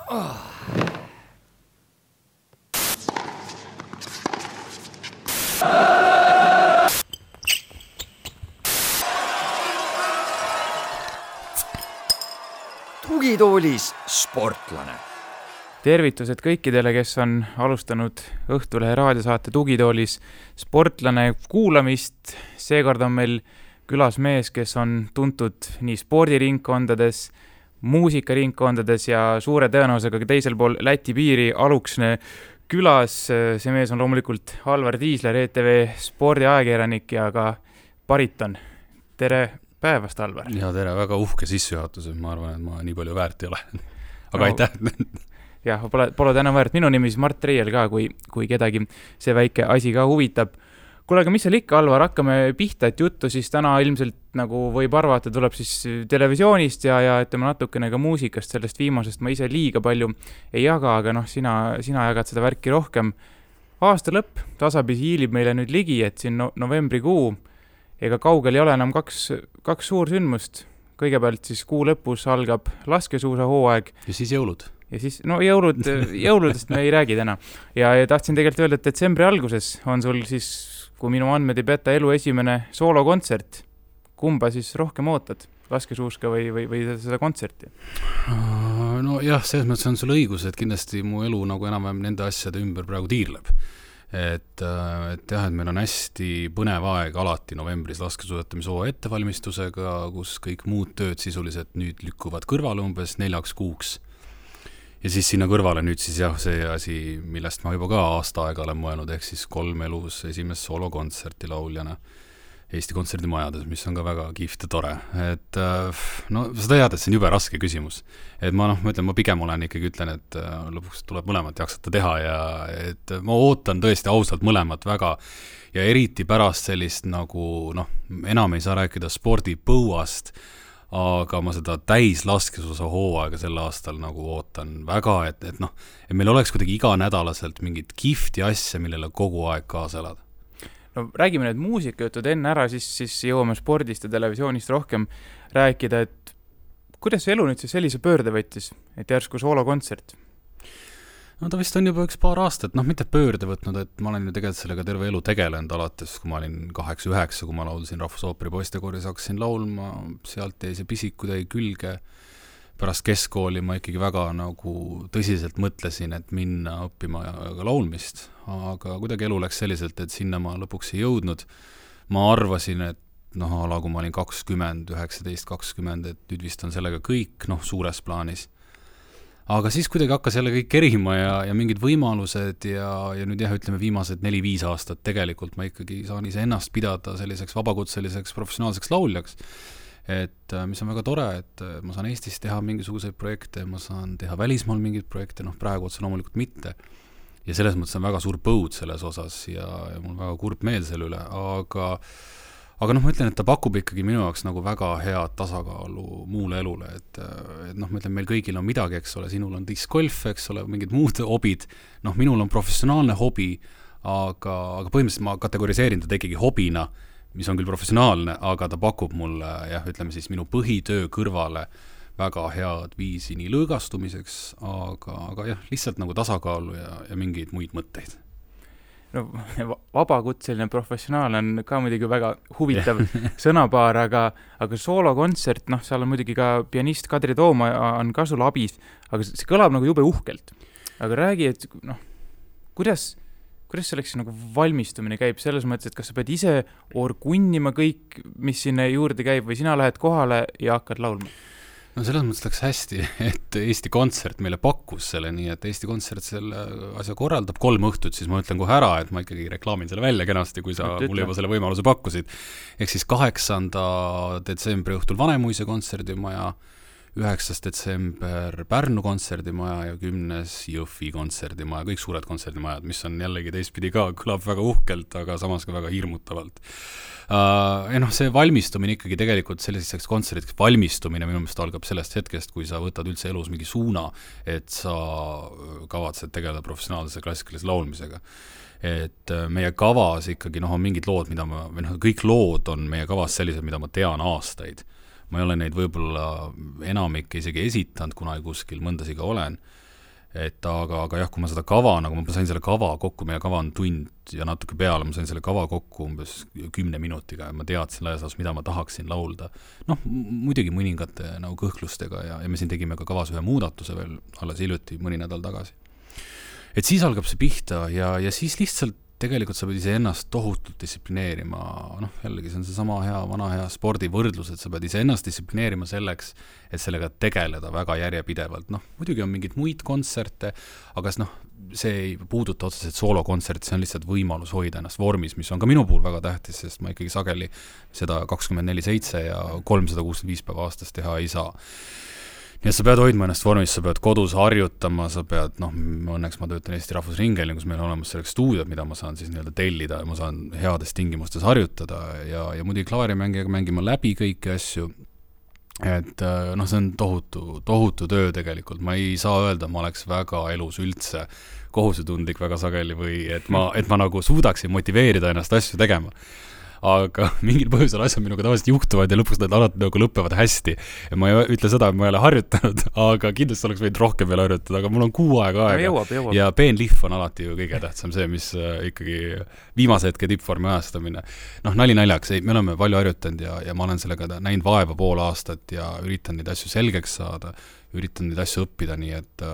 Tugitoolis sportlane. Tervitused kõikidele, kes on alustanud Õhtulehe raadiosaate Tugitoolis sportlane kuulamist. Seekord on meil külas mees, kes on tuntud nii spordiringkondades, muusikaringkondades ja suure tõenäosusega teisel pool Läti piiri Aluksne külas. See mees on loomulikult Alvar Tiisler, ETV spordiajakirjanik ja ka bariton. Tere päevast, Alvar! Ja tere, väga uhke sissejuhatus, ma arvan, et ma nii palju väärt ei ole. Aga aitäh! Jah, pole täna väärt. Minu nimi siis Mart Reiel ka, kui kedagi see väike asi ka huvitab. Kuule, aga mis seal ikka, Alvar, hakkame pihta, et juttu siis täna ilmselt, nagu võib arvata, tuleb siis televisioonist ja ütleme natukene ka muusikast, sellest viimasest ma ise liiga palju ei jaga, aga sina jagad seda värki rohkem. Aasta lõpp tasapisi hiilib meile nüüd ligi, et siin novembrikuu, ega kaugel ei ole enam kaks suursündmust. Kõigepealt siis kuu lõpus algab laskesuusahooaeg. Ja siis jõulud. Ja siis, jõuludest me ei räägi täna. Ja tahtsin tegelikult öelda, et detsembri alguses on sul siis, kui minu andmed ei peta, elu esimene soolokontsert. Kumba siis rohkem ootad? Laskesuuska või seda kontserti? No jah, selles mõttes on sul õigus, et kindlasti mu elu nagu enam-vähem nende asjade ümber praegu tiirleb. Et meil on hästi põnev aeg alati novembris laskesuusatamisoo ettevalmistusega, kus kõik muud tööd sisuliselt nüüd lükkuvad kõrvale umbes 4 kuuks. Ja siis sinna kõrvale nüüd siis see asi, millest ma juba ka aasta aega olen mõelnud, ehk siis 3 elus esimest soolokontserti lauljana Eesti kontserdimajades, mis on ka väga kihvt ja tore. Et seda tead, et see on jube raske küsimus. Et ma pigem ütlen, et lõpuks tuleb mõlemat jaksata teha ja et ma ootan tõesti ausalt mõlemat väga ja eriti pärast sellist nagu, enam ei saa rääkida spordipõuast, aga ma seda täis laskesuusa hooaega sel aastal nagu ootan väga, et meil oleks kuidagi iganädalaselt mingit kihvti asja, millele kogu aeg kaasa elada. No räägime need muusikajutud enne ära, siis jõuame spordist ja televisioonist rohkem rääkida, et kuidas see elu nüüd siis sellise pöörde võttis, et järsku soolokontsert? No ta vist on juba üks paar aastat, mitte pöörde võtnud, et ma olen ju tegelikult sellega terve elu tegelenud alates, kui ma olin 8-9, kui ma laulsin Rahvusooperi poistekoris, hakkasin laulma, sealt jäi see pisikud jäi külge. Pärast keskkooli ma ikkagi väga nagu tõsiselt mõtlesin, et minna õppima ka laulmist, aga kuidagi elu läks selliselt, et sinna ma lõpuks ei jõudnud. Ma arvasin, et kui ma olin 20, 19, 20, et nüüd vist on sellega kõik, suures plaanis. Aga siis kuidagi hakkas jälle kõik kerima ja mingid võimalused ja nüüd ütleme viimased 4-5 aastat tegelikult ma ikkagi saan ise ennast pidada selliseks vabakutseliseks professionaalseks lauljaks. Et mis on väga tore, et ma saan Eestis teha mingisuguseid projekte, ma saan teha välismaal mingeid projekte, praegu otse loomulikult mitte. Ja selles mõttes on väga suur põud selles osas ja mul väga kurb meel selle üle, aga ma ütlen, et ta pakub ikkagi minu jaoks nagu väga head tasakaalu muule elule, et ma ütlen, meil kõigil on midagi, eks ole, sinul on discgolf, eks ole, mingid muud hobid, minul on professionaalne hobi, aga põhimõtteliselt ma kategoriseerin ta ikkagi hobina, mis on küll professionaalne, aga ta pakub mulle, ütleme siis minu põhitöö kõrvale väga head viisi nii lõõgastumiseks, aga lihtsalt nagu tasakaalu ja mingeid muid mõtteid. Vabakutseline professionaal on ka muidugi väga huvitav sõnapaar, aga soolokontsert, seal on muidugi ka pianist Kadri Tooma on ka sul abis, aga see kõlab nagu jube uhkelt. Aga räägi, et kuidas selleks nagu valmistumine käib selles mõttes, et kas sa pead ise orgunnima kõik, mis sinna juurde käib või sina lähed kohale ja hakkad laulma? No selles mõttes läks hästi, et Eesti Kontsert meile pakkus selle, nii et Eesti Kontsert selle asja korraldab 3 õhtut, siis ma ütlen kohe ära, et ma ikkagi reklaamin selle välja kenasti, kui sa mulle juba selle võimaluse pakkusid. Ehk siis 8. detsembri õhtul Vanemuise kontserdimaja, 9. detsember Pärnu kontserdimaja ja 10. Jõhvi kontserdimaja, kõik suured kontserdimajad, mis on jällegi teistpidi ka, kõlab väga uhkelt, aga samas ka väga hirmutavalt. See valmistumine ikkagi tegelikult selliseks kontserdiks valmistumine minu meelest algab sellest hetkest, kui sa võtad üldse elus mingi suuna, et sa kavatsed tegeleda professionaalse klassikalise laulmisega. Et meie kavas ikkagi on mingid lood, kõik lood on meie kavas sellised, mida ma tean aastaid. Ma ei ole neid võib-olla enamik isegi esitanud, kuna kuskil mõndasiga olen. et aga jah, kui ma seda kava, nagu ma sain selle kava kokku, meie kava on tund ja natuke peale, ma sain selle kava kokku umbes 10 minutiga ja ma teadsin laias laastus, mida ma tahaksin laulda. Muidugi mõningate nagu kõhklustega ja me siin tegime ka kavas ühe muudatuse veel alles hiljuti, mõni nädal tagasi. Et siis algab see pihta ja siis lihtsalt tegelikult sa pead ise ennast tohutult distsiplineerima, jällegi see on see sama vana hea spordivõrdlus, et sa pead ise ennast distsiplineerima selleks, et sellega tegeleda väga järjepidevalt. Muidugi on mingid muid kontserte, aga see ei puuduta otseselt soolokontsert, see on lihtsalt võimalus hoida ennast vormis, mis on ka minu puhul väga tähtis, sest ma ikkagi sageli seda 24/7 ja 365 päeva aastas teha ei saa. Nii et sa pead hoidma ennast vormis, sa pead kodus harjutama, sa pead, õnneks ma töötan Eesti Rahvusringhäälingus, meil on olemas selleks stuudiod, mida ma saan siis nii-öelda tellida ja ma saan heades tingimustes harjutada ja muidugi klaarimängijaga mängima läbi kõiki asju. Et see on tohutu töö tegelikult, ma ei saa öelda, ma oleks väga elus üldse kohusetundlik väga sageli või et ma nagu suudaksin motiveerida ennast asju tegema. Aga mingil põhjusel asjad minuga tavaliselt juhtuvad ja lõpuks nad alati nagu lõpevad hästi. Ja ma ei ütle seda, et ma ei ole harjutanud, aga kindlasti oleks võinud rohkem veel harjutada, aga mul on 6 aega. Jõuab. Ja peenlihv on alati ju kõige tähtsam see, mis ikkagi viimase hetke tippvormi ajastamine. Nali naljaks, me oleme palju harjutanud ja ma olen sellega näinud vaeva pool aastat ja üritan neid asju selgeks saada, üritan neid asju õppida, nii et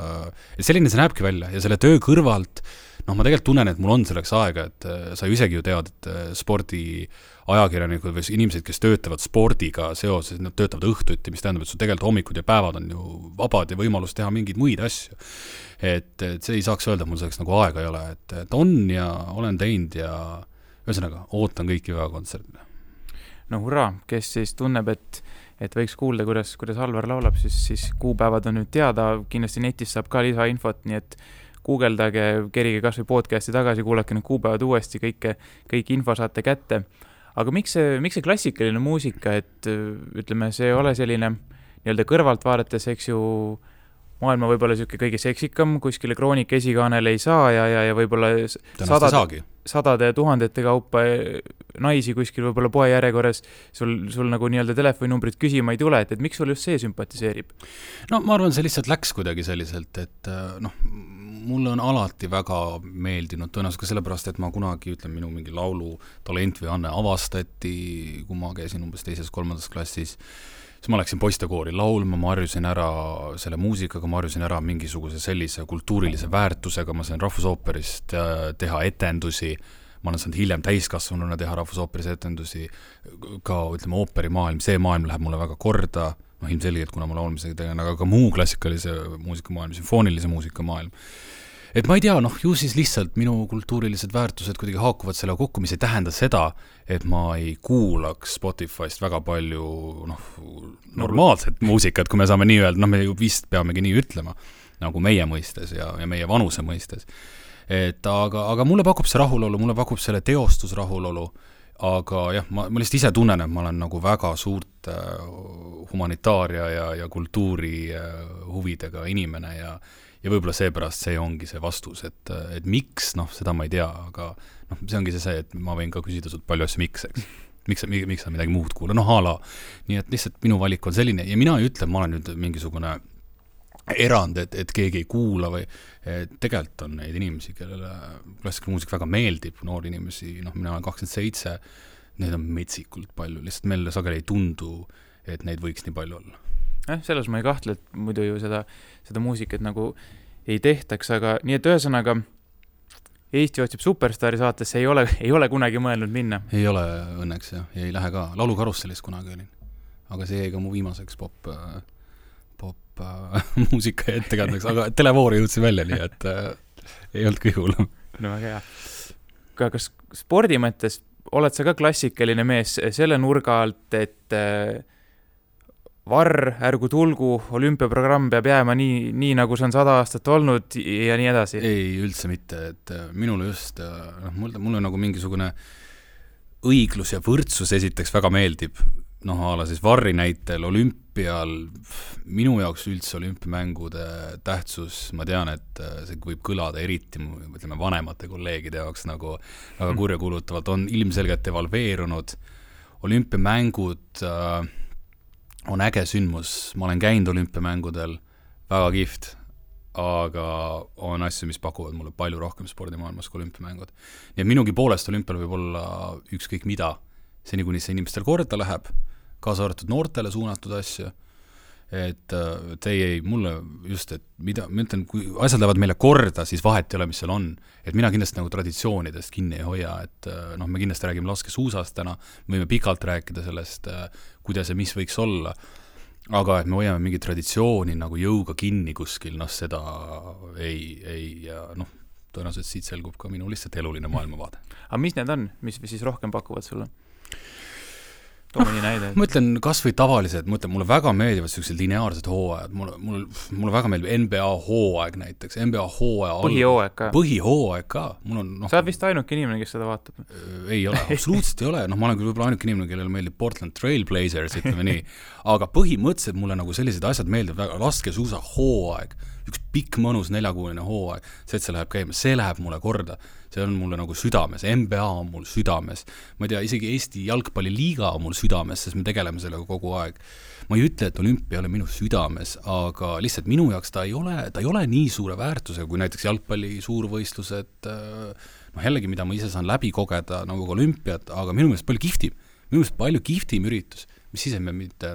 selline see näebki välja ja selle töö kõrvalt ma tegelikult tunnen, et mul on selleks aega, et sa ju isegi ju tead, et spordiajakirjanikud või inimesed, kes töötavad spordiga seoses, nad töötavad õhtuti, mis tähendab, et su tegelikult hommikud ja päevad on ju vabad ja võimalus teha mingeid muid asju. Et see ei saaks öelda, mul selleks nagu aega ei ole, et on ja olen teinud ja ühesõnaga, ootan kõiki väga kontserdile. Hurraa, kes siis tunneb, et võiks kuulda, kuidas Alvar laulab, siis kuupäevad on nüüd teada, kindlasti netis saab ka lisainfot, nii et guugeldage, kerige kas või podcasti tagasi, kuulake need kuupäevad uuesti, kõik info saate kätte. Aga miks see klassikaline muusika, et ütleme, see ei ole selline nii-öelda kõrvalt vaadates, eks ju, maailma võib-olla siuke kõige seksikam, kuskile Kroonika esikaanel ei saa ja võib-olla sadade tuhandete kaupa naisi kuskil võib-olla poe järjekorras sul nagu nii-öelda telefoninumbrit küsima ei tule, et miks sul just see sümpatiseerib? Ma arvan, see lihtsalt läks kuidagi selliselt, et mulle on alati väga meeldinud, tõenäoliselt ka sellepärast, et ma kunagi, minu mingi laulu talent või anne avastati, kui ma käisin umbes 2.-3. klassis, siis ma läksin poistekoori laulma, ma harjusin ära selle muusikaga, ma harjusin ära mingisuguse sellise kultuurilise väärtusega, ma sain Rahvusooperist teha etendusi, ma olen saanud hiljem täiskasvanuna teha Rahvusooperis etendusi, ka ooperimaailm, see maailm läheb mulle väga korda, ilmselgelt, kuna ma laulmisega tegelen, aga ka muu klassikalise muusikamaailm, sümfoonilise muusikamaailm. Et ma ei tea, ju siis lihtsalt minu kultuurilised väärtused kuidagi haakuvad selle kokku, mis ei tähenda seda, et ma ei kuulaks Spotify'st väga palju normaalset muusikat, kui me saame nii öelda, me ju vist peamegi nii ütlema, nagu meie mõistes ja meie vanuse mõistes. Et aga mulle pakub see rahulolu, mulle pakub selle teostus rahulolu, aga jah, ma lihtsalt ise tunnen, et ma olen nagu väga suurt humanitaaria ja kultuuri huvidega inimene ja võib-olla seepärast see ongi see vastus, et miks, seda ma ei tea, aga see ongi see, et ma võin ka küsida sult palju asju miks, eks. Miks sa midagi muud kuula, hala. Nii et lihtsalt minu valik on selline ja mina ei ütle, ma olen nüüd mingisugune erand, et keegi ei kuula või tegelikult on neid inimesi, kellele klassikaline muusika väga meeldib, noori inimesi, mina olen 27, neid on metsikult palju, lihtsalt meile sageli ei tundu, et neid võiks nii palju olla. Selles ma ei kahtle, et muidu ju seda muusikat nagu ei tehtaks, aga nii et ühesõnaga Eesti otsib superstaari saatesse ei ole kunagi mõelnud minna. Ei ole õnneks ja ei lähe ka. Laulukarussellis kunagi olin. Aga see jäi ka mu viimaseks pop muusika ettekandeks, aga televoori jõudsin välja, nii et ei olnud kõige hullem. No väga hea. Kas spordi mõttes oled sa ka klassikaline mees selle nurga alt, et varr, ärgu tulgu, olümpiaprogramm peab jääma nii nagu see on 100 aastat olnud ja nii edasi? Ei, üldse mitte, et minule just, mulle nagu mingisugune õiglus ja võrdsus esiteks väga meeldib, ala siis varri näitel olümpial, minu jaoks üldse olümpiamängude tähtsus, ma tean, et see võib kõlada eriti, ütleme, vanemate kolleegide jaoks nagu väga kurjakuulutavalt, on ilmselgelt evalveerunud, olümpiamängud on äge sündmus, ma olen käinud olümpiamängudel, väga kihvt, aga on asju, mis pakuvad mulle palju rohkem spordimaailmas kui olümpiamängud. Nii et minugi poolest olümpial võib olla ükskõik mida, seni kuni see inimestel korda läheb, kaasa arvatud noortele suunatud asju, et mulle just, et mida, ma ütlen, kui asjad lähevad meile korda, siis vahet ei ole, mis seal on. Et mina kindlasti nagu traditsioonidest kinni ei hoia, et me kindlasti räägime laskesuusast täna, me võime pikalt rääkida sellest, kuidas ja mis võiks olla, aga et me hoiame mingi traditsiooni nagu jõuga kinni kuskil, seda tõenäoliselt siit selgub ka minu lihtsalt eluline maailmavaade. Aga mis need on, mis siis rohkem pakuvad sulle? Mõni näide. Ma ütlen kas või tavalised, mulle väga meeldivad sellised lineaarsed hooajad, mulle väga meeldib NBA hooaeg näiteks, NBA hooaeg põhihooaeg ka. Sa oled vist ainuke inimene, kes seda vaatab? Ei ole, absoluutselt ei ole, ma olen küll võib-olla ainuke inimene, kellele meeldib Portland Trail Blazers, ütleme nii, aga põhimõtteliselt mulle nagu sellised asjad meeldib väga, laskesuusa hooaeg, üks pikk mõnus 4-kuuline hooaeg, see, et see läheb käima, see läheb mulle korda, see on mulle nagu südames, NBA on mul südames, ma ei tea, isegi Eesti jalgpalliliiga on mul südames, sest me tegeleme sellega kogu aeg. Ma ei ütle, et olümpia ei ole minu südames, aga lihtsalt minu jaoks ta ei ole nii suure väärtusega, kui näiteks jalgpalli suurvõistlused, jällegi, mida ma ise saan läbi kogeda nagu olümpiat, aga minu meelest palju kihvtim üritus, mis ise me mitte,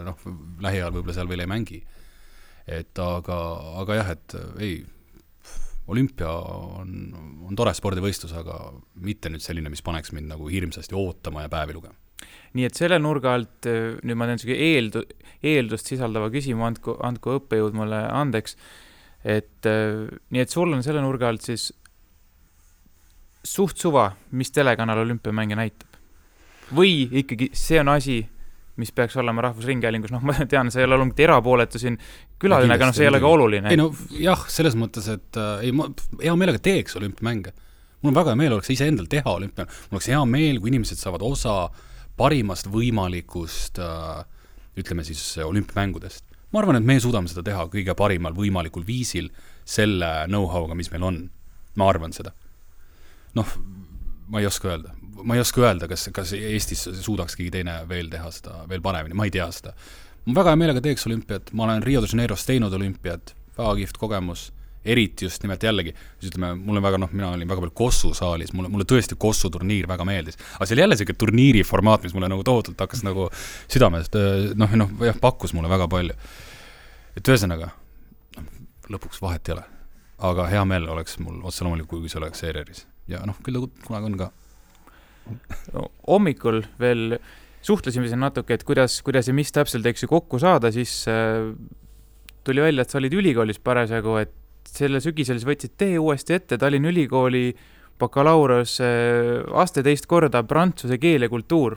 lähiajal võib-olla seal veel ei mängi. Aga jah, et ei, olümpia on tore spordivõistlus, aga mitte nüüd selline, mis paneks mind nagu hirmsasti ootama ja päevi lugema. Nii et selle nurga alt, nüüd ma teen eeldust sisaldava küsimu, andku õppejõud mulle andeks, nii et sul on selle nurga alt siis suht suva, mis telekanal olümpiamänge näitab? Või ikkagi see on asi, mis peaks olema Rahvusringhäälingus, ma tean, see ei ole olnud erapooletu siin külaline, aga see ei ole ka oluline. Ei jah, selles mõttes, et ma hea meelega teeks olümpiamänge. Mul on väga hea meel, oleks ise endal teha olümpia. Mul oleks hea meel, kui inimesed saavad osa parimast võimalikust, ütleme siis, olümpiamängudest. Ma arvan, et me suudame seda teha kõige parimal võimalikul viisil selle know-how'ga, mis meil on. Ma arvan seda. Ma ei oska öelda, kas Eestis suudaks keegi teine veel teha seda veel paremini, ma ei tea seda. Ma väga hea meelega teeks olümpiat, ma olen Rio de Janeiros teinud olümpiat, väga kihvt kogemus, eriti just nimelt jällegi, ütleme, mina olin väga palju Kossu saalis, mulle tõesti Kossu turniir väga meeldis, aga see oli jälle selline turniiri formaat, mis mulle nagu tohutult hakkas nagu südamest, pakkus mulle väga palju. Et ühesõnaga, lõpuks vahet ei ole, aga hea meel oleks mul otse loomulikult, kui see oleks ERR-is ja küll kunagi on ka. Hommikul veel suhtlesime siin natuke, et kuidas ja mis täpselt kokku saada, siis tuli välja, et sa olid ülikoolis parasjagu, et selle sügisel võtsid tee uuesti ette Tallinna Ülikooli bakalaureus aste teist korda prantsuse keel ja kultuur.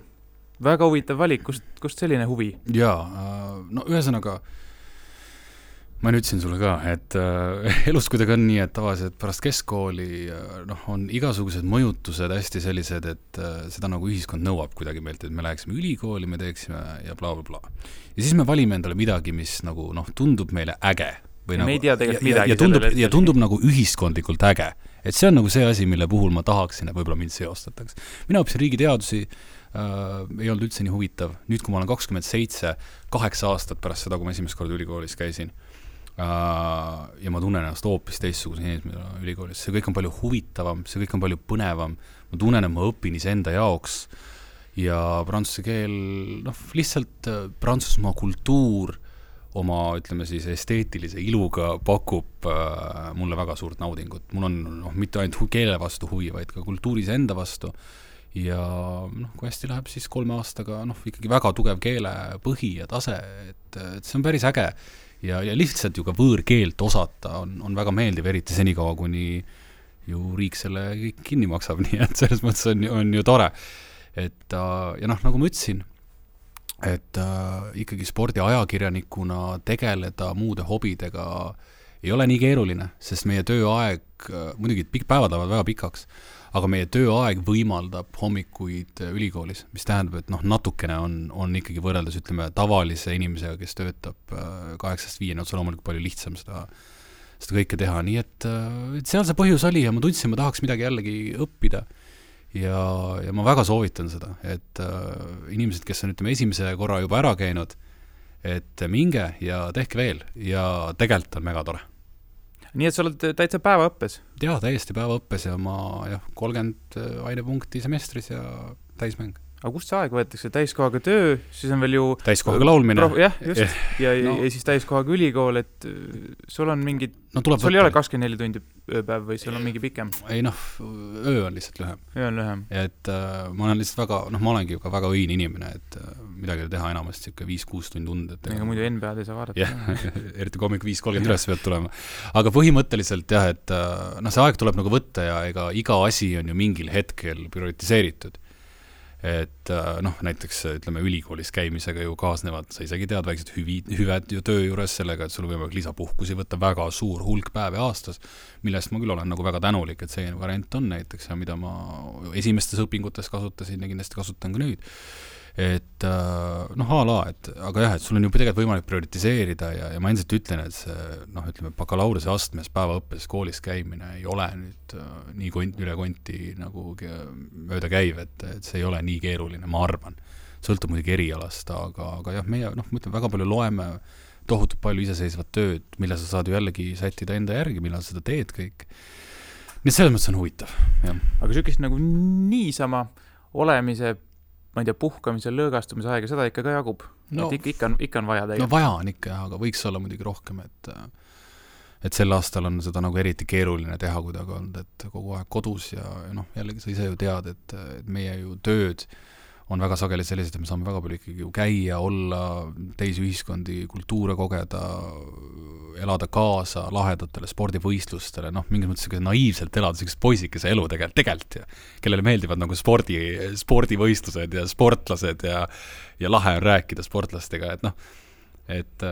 Väga huvitav valik, kust selline huvi? Jaa, ühesõnaga ma ütlesin sulle ka, et elus kuidagi on nii, et tavaliselt pärast keskkooli on igasugused mõjutused hästi sellised, et seda nagu ühiskond nõuab kuidagi meilt, et me läheksime ülikooli, me teeksime ja bla, bla, bla. Ja siis me valime endale midagi, mis nagu tundub meile äge. Või me nagu, ei tea tegelikult midagi. Ja tundub nagu ühiskondlikult äge. Et see on nagu see asi, mille puhul ma tahaksin, et võib-olla mind seostataks. Mina õppisin riigiteadusi, ei olnud üldse nii huvitav. Nüüd, kui ma olen 27, 8 aastat pärast seda, kui ma esimest korda ülikoolis käisin, ja ma tunnen ennast hoopis teistsuguse inimesena ülikoolis. See kõik on palju huvitavam, see kõik on palju põnevam. Ma tunnen, et ma õpin iseenda jaoks ja prantsuse keel, lihtsalt Prantsusmaa kultuur oma, ütleme siis, esteetilise iluga pakub mulle väga suurt naudingut. Mul on mitte ainult keele vastu huvi, vaid ka kultuuris enda vastu. Ja kui hästi läheb, siis 3 aastaga ikkagi väga tugev keele põhi ja tase, et see on päris äge. Ja lihtsalt ju ka võõrkeelt osata on väga meeldiv, eriti senikaua, kuni ju riik selle kinni maksab, nii et selles mõttes on ju tore. Et, ja nagu ma ütlesin, et ikkagi spordiajakirjanikuna tegeleda muude hobidega ei ole nii keeruline, sest meie tööaeg, muidugi päevad lähevad väga pikaks, aga meie tööaeg võimaldab hommikuid ülikoolis, mis tähendab, et natukene on ikkagi võrreldes, ütleme, tavalise inimesega, kes töötab 8-5, otse loomulikult palju lihtsam seda kõike teha, nii et seal see põhjus oli ja ma tundsin, ma tahaks midagi jällegi õppida ja ma väga soovitan seda, et inimesed, kes on, ütleme, esimese korra juba ära käinud, et minge ja tehke veel ja tegelikult on mega tore. Nii et sa oled täitsa päevaõppes? Jaa, täiesti päevaõppes ja ma 30 ainepunkti semestris ja täismäng. Aga kust see aeg võetakse? Täiskohaga töö, siis on veel ju... Täiskohaga laulmine. Jah, just. Ja siis täiskohaga ülikool, et sul on mingid... sul ei ole 24 tundi ööpäev või sul on mingi pikem? Ei öö on lihtsalt lühem. Öö on lühem. Et ma olen lihtsalt väga, ma olengi ka väga õin inimene, et midagi teha enamasti 5-6 tundi und. Ega muidu NBA-d ei saa vaadata. Jah, eriti hommik 5:30 üles pealt tulema. Aga põhimõtteliselt jah, et see aeg tuleb nagu võtta ja ega iga asi on ju mingil hetkel prioritiseeritud. Et näiteks ütleme ülikoolis käimisega ju kaasnevad, sa isegi tead väiksed hüved ju töö juures sellega, et sul võimalik lisapuhkusi võtta väga suur hulk päevi aastas, millest ma küll olen nagu väga tänulik, et see variant on näiteks ja mida ma esimestes õpingutes kasutasin ja kindlasti kasutan ka nüüd. Et aga jah, et sul on ju tegelikult võimalik prioritiseerida ja ma endiselt ütlen, et see ütleme bakalaureuse astmes päevaõppes koolis käimine ei ole nüüd nii üle konti nagu mööda käiv, et see ei ole nii keeruline, ma arvan. Sõltub muidugi erialast, aga jah, meie ma ütlen, väga palju loeme tohutult palju iseseisvat tööd, mille sa saad ju jällegi sättida enda järgi, millal sa seda teed kõik. Nii et selles mõttes on huvitav, jah. Aga sükist nagu niisama olemise ma ei tea, puhkamise, lõõgastumise aega, seda ikka ka jagub. Et ikka on vaja tegelikult. Vaja on ikka, aga võiks olla muidugi rohkem, et sel aastal on seda nagu eriti keeruline teha kuidagi olnud, et kogu aeg kodus ja jällegi sa ise ju tead, et meie ju tööd on väga sageli sellised, et me saame väga palju ikkagi ju käia, olla teisi ühiskondi, kultuure kogeda, elada kaasa lahedatele spordivõistlustele, mingis mõttes naiivselt elada sellised poisikese elu tegelikult ja kellele meeldivad nagu spordivõistlused ja sportlased ja lahe on rääkida sportlastega, et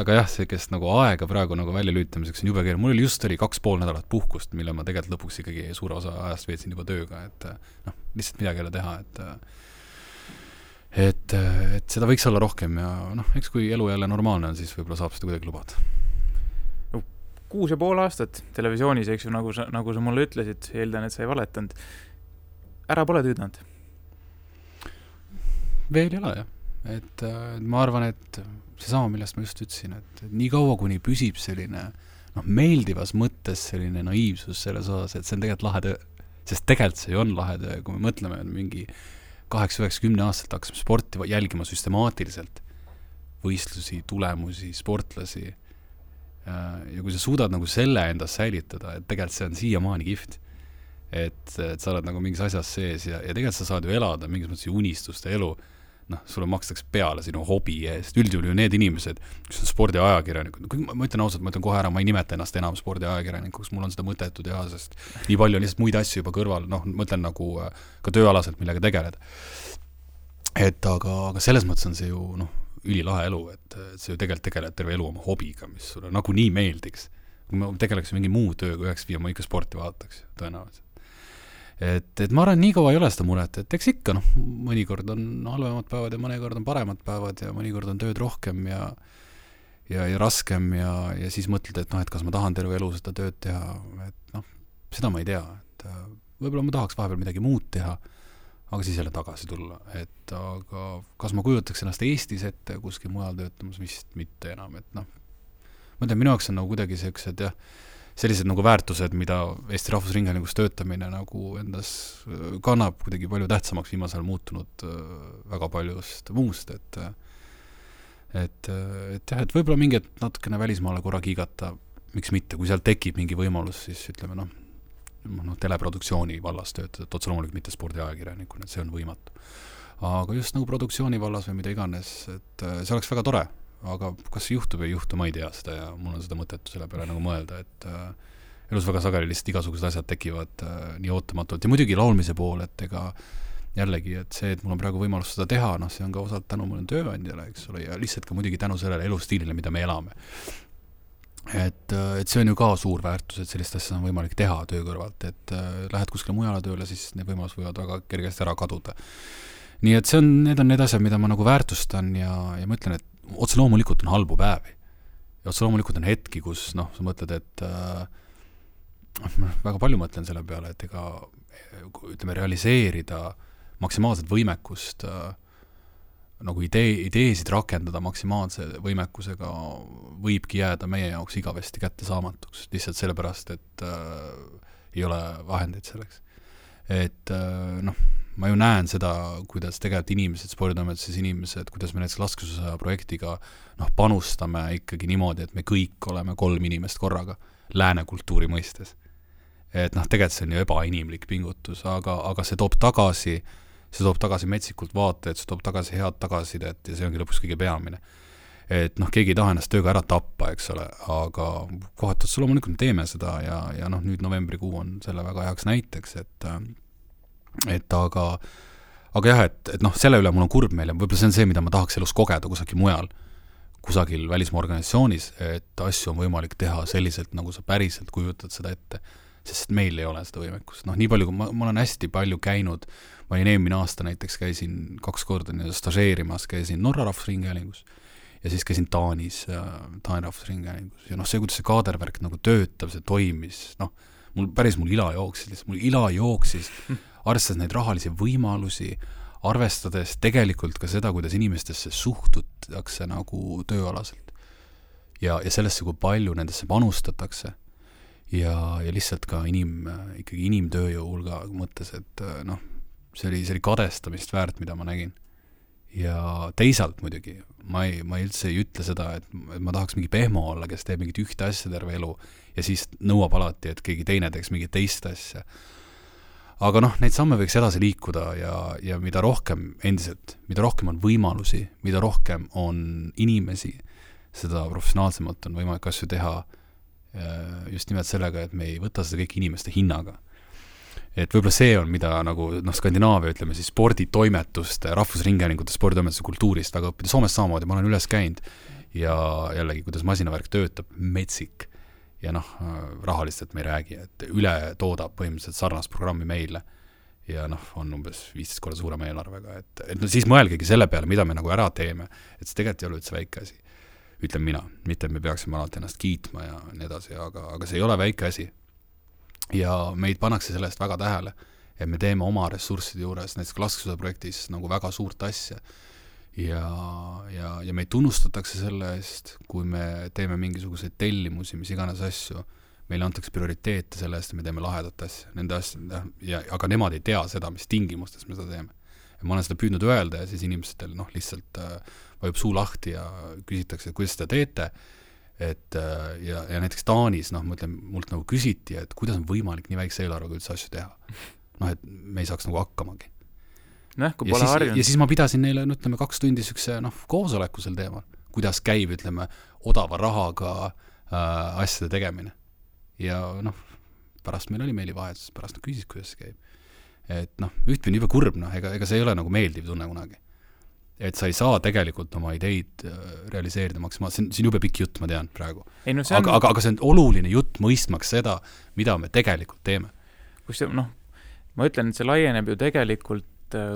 aga jah, see, kes nagu aega praegu nagu välja lüütamiseks on jube keeruline. Mul just oli 2,5 nädalat puhkust, mille ma tegelikult lõpuks ikkagi suure osa ajast veetsin juba tööga, et lihtsalt midagi ei ole teha, et seda võiks olla rohkem ja eks kui elu jälle normaalne on, siis võib-olla saab seda kuidagi lubada. 6,5 aastat televisioonis, eks ju, nagu sa mulle ütlesid, eeldan, et sa ei valetanud. Ära pole tüüdanud? Veel ei ole, jah. Et ma arvan, et seesama, millest ma just ütlesin, et nii kaua, kuni püsib selline meeldivas mõttes selline naiivsus selles osas, et see on tegelikult lahe töö, sest tegelikult see on lahe töö, kui me mõtleme mingi 8-9-10 aastat hakkasime sporti jälgima süstemaatiliselt, võistlusi, tulemusi, sportlasi ja kui sa suudad nagu selle endas säilitada, et tegelikult see on siiamaani kihvt, et sa oled nagu mingis asjas sees ja tegelikult sa saad ju elada mingis mõttes unistuste elu, sulle makstakse peale sinu hobi eest. Üldjuhul ju need inimesed, kes on spordiajakirjanikud, ma ütlen ausalt, ma ütlen kohe ära, ma ei nimeta ennast enam spordiajakirjanikuks, mul on seda mõttetu teha, sest nii palju on lihtsalt muid asju juba kõrval, ma ütlen nagu ka tööalaselt, millega tegeleda. Et aga selles mõttes on see ju ülilahe elu, et see ju tegelikult tegeled terve elu oma hobiga, mis sulle nagu nii meeldiks. Kui ma tegeleks mingi muu tööga 9-5, ma ikka sporti vaataks, tõenäoliselt. Et ma arvan, nii kaua ei ole seda muret, et eks ikka, mõnikord on halvemad päevad ja mõnikord on paremad päevad ja mõnikord on tööd rohkem ja raskem ja siis mõtled, et kas ma tahan terve elu seda tööd teha, et seda ma ei tea, et võib-olla ma tahaks vahepeal midagi muud teha, aga siis jälle tagasi tulla, et aga kas ma kujutaks ennast Eestis ette kuskil mujal töötamas, vist mitte enam, et ma ütlen, minu jaoks on nagu kuidagi sellised sellised nagu väärtused, mida Eesti Rahvusringhäälingus töötamine nagu endas kannab kuidagi palju tähtsamaks viimasel muutunud väga paljust muust, et võib-olla mingi natukene välismaale korra kiigata, miks mitte, kui seal tekib mingi võimalus, siis ütleme teleproduktsiooni vallas töötada, et otse loomulikult mitte spordiajakirjanikuna, et see on võimatu. Aga just nagu produktsiooni vallas või mida iganes, et see oleks väga tore, aga kas see juhtub või ei juhtu, ma ei tea seda ja mul on seda mõttetu selle peale nagu mõelda, et elus väga sageli lihtsalt igasugused asjad tekivad nii ootamatult ja muidugi laulmise pool, et ega jällegi, et see, et mul on praegu võimalus seda teha, see on ka osalt tänu mul tööandjale, eks ole, ja lihtsalt ka muidugi tänu sellele elustiilile, mida me elame. Et see on ju ka suur väärtus, et sellist asja on võimalik teha töö kõrvalt, et lähed kuskile mujale tööle, siis need võimalus võivad väga kergesti ära kaduda. Nii et need on need asjad, mida ma nagu väärtustan ja ma ütlen, et otse loomulikult on halbu päevi. Ja otse loomulikult on hetki, kus sa mõtled, et väga palju mõtlen selle peale, et ütleme, realiseerida maksimaalset võimekust nagu ideesid rakendada maksimaalse võimekusega võibki jääda meie jaoks igavesti kättesaamatuks, lihtsalt sellepärast, et ei ole vahendeid selleks. Et ma ju näen seda, kuidas tegelikult inimesed, sporditoimetuses inimesed, kuidas me näiteks laskesuusa projektiga panustame ikkagi niimoodi, et me kõik oleme 3 inimest korraga lääne kultuuri mõistes. Et tegelikult see on ju ebainimlik pingutus, aga see toob tagasi metsikult vaateid, see toob tagasi head tagasisidet ja see ongi lõpuks kõige peamine. Et keegi ei taha ennast tööga ära tappa, eks ole, aga kohati otsa loomulikult teeme seda ja nüüd novembrikuu on selle väga heaks näiteks, et aga jah, et selle üle mul on kurb meil ja võib-olla see on see, mida ma tahaks elus kogeda kusagil mujal, kusagil välismaa organisatsioonis, et asju on võimalik teha selliselt, nagu sa päriselt kujutad seda ette, sest meil ei ole seda võimekust. Nii palju, kui ma olen hästi palju käinud, ma olin eelmine aasta näiteks, käisin 2 korda stažeerimas, käisin Norra rahvusringhäälingus ja siis käisin Taani rahvusringhäälingus ja see, kuidas see kaadervärk nagu töötab, see toimis, mul ila jooksis, arvestades neid rahalisi võimalusi, arvestades tegelikult ka seda, kuidas inimestesse suhtutakse nagu tööalaselt ja sellesse, kui palju nendesse panustatakse ja lihtsalt ka ikkagi inimtööjõu hulga mõttes, et see oli kadestamist väärt, mida ma nägin. Ja teisalt muidugi, ma üldse ei ütle seda, et ma tahaks mingi pehmo olla, kes teeb mingit ühte asja terve elu ja siis nõuab alati, et keegi teine teeks mingit teist asja. Aga neid samme võiks edasi liikuda ja mida rohkem on võimalusi, mida rohkem on inimesi, seda professionaalsemalt on võimalik asju teha just nimelt sellega, et me ei võta seda kõik inimeste hinnaga. Et võib-olla see on, mida nagu Skandinaavia, ütleme siis sporditoimetuste, rahvusringhäälingute sporditoimetuste kultuurist väga õppida. Soomes samamoodi, ma olen üles käinud ja jällegi, kuidas masinavärk töötab, metsik ja rahalistelt me ei räägi, et üle toodab põhimõtteliselt sarnast programmi meile ja on umbes 15 korda suurema eelarvega, et siis mõelgegi selle peale, mida me nagu ära teeme, et see tegelikult ei ole üldse väike asi. Ütlen mina, mitte et me peaksime alati ennast kiitma ja nii edasi, aga see ei ole väike asi. Ja meid pannakse sellest väga tähele, et me teeme oma ressursside juures, näiteks laskesuusa projektis nagu väga suurt asja ja meid tunnustatakse selle eest, kui me teeme mingisuguseid tellimusi, mis iganes asju, meile antakse prioriteete selle eest, et me teeme lahedat asja, nende asja, aga nemad ei tea seda, mis tingimustes me seda teeme. Ja ma olen seda püüdnud öelda ja siis inimestel lihtsalt vajub suu lahti ja küsitakse, et kuidas seda teete, ja näiteks Taanis, mult nagu küsiti, et kuidas on võimalik nii väikse eelarvega üldse asju teha. Et me ei saaks nagu hakkamagi. Kui pole harjunud. Ja siis ma pidasin neile, 2 tundi sükse koosoleku sel teemal, kuidas käib, odava rahaga asjade tegemine. Ja pärast meil oli meilivahetus, pärast küsis, kuidas see käib. Et ühtpidi juba kurb, ega see ei ole nagu meeldiv tunne kunagi. Et sa ei saa tegelikult oma ideid realiseerida maksimaalselt. See on jube pikk jutt, ma tean praegu. Aga see on oluline jutt mõistmaks seda, mida me tegelikult teeme. Ma ütlen, et see laieneb ju tegelikult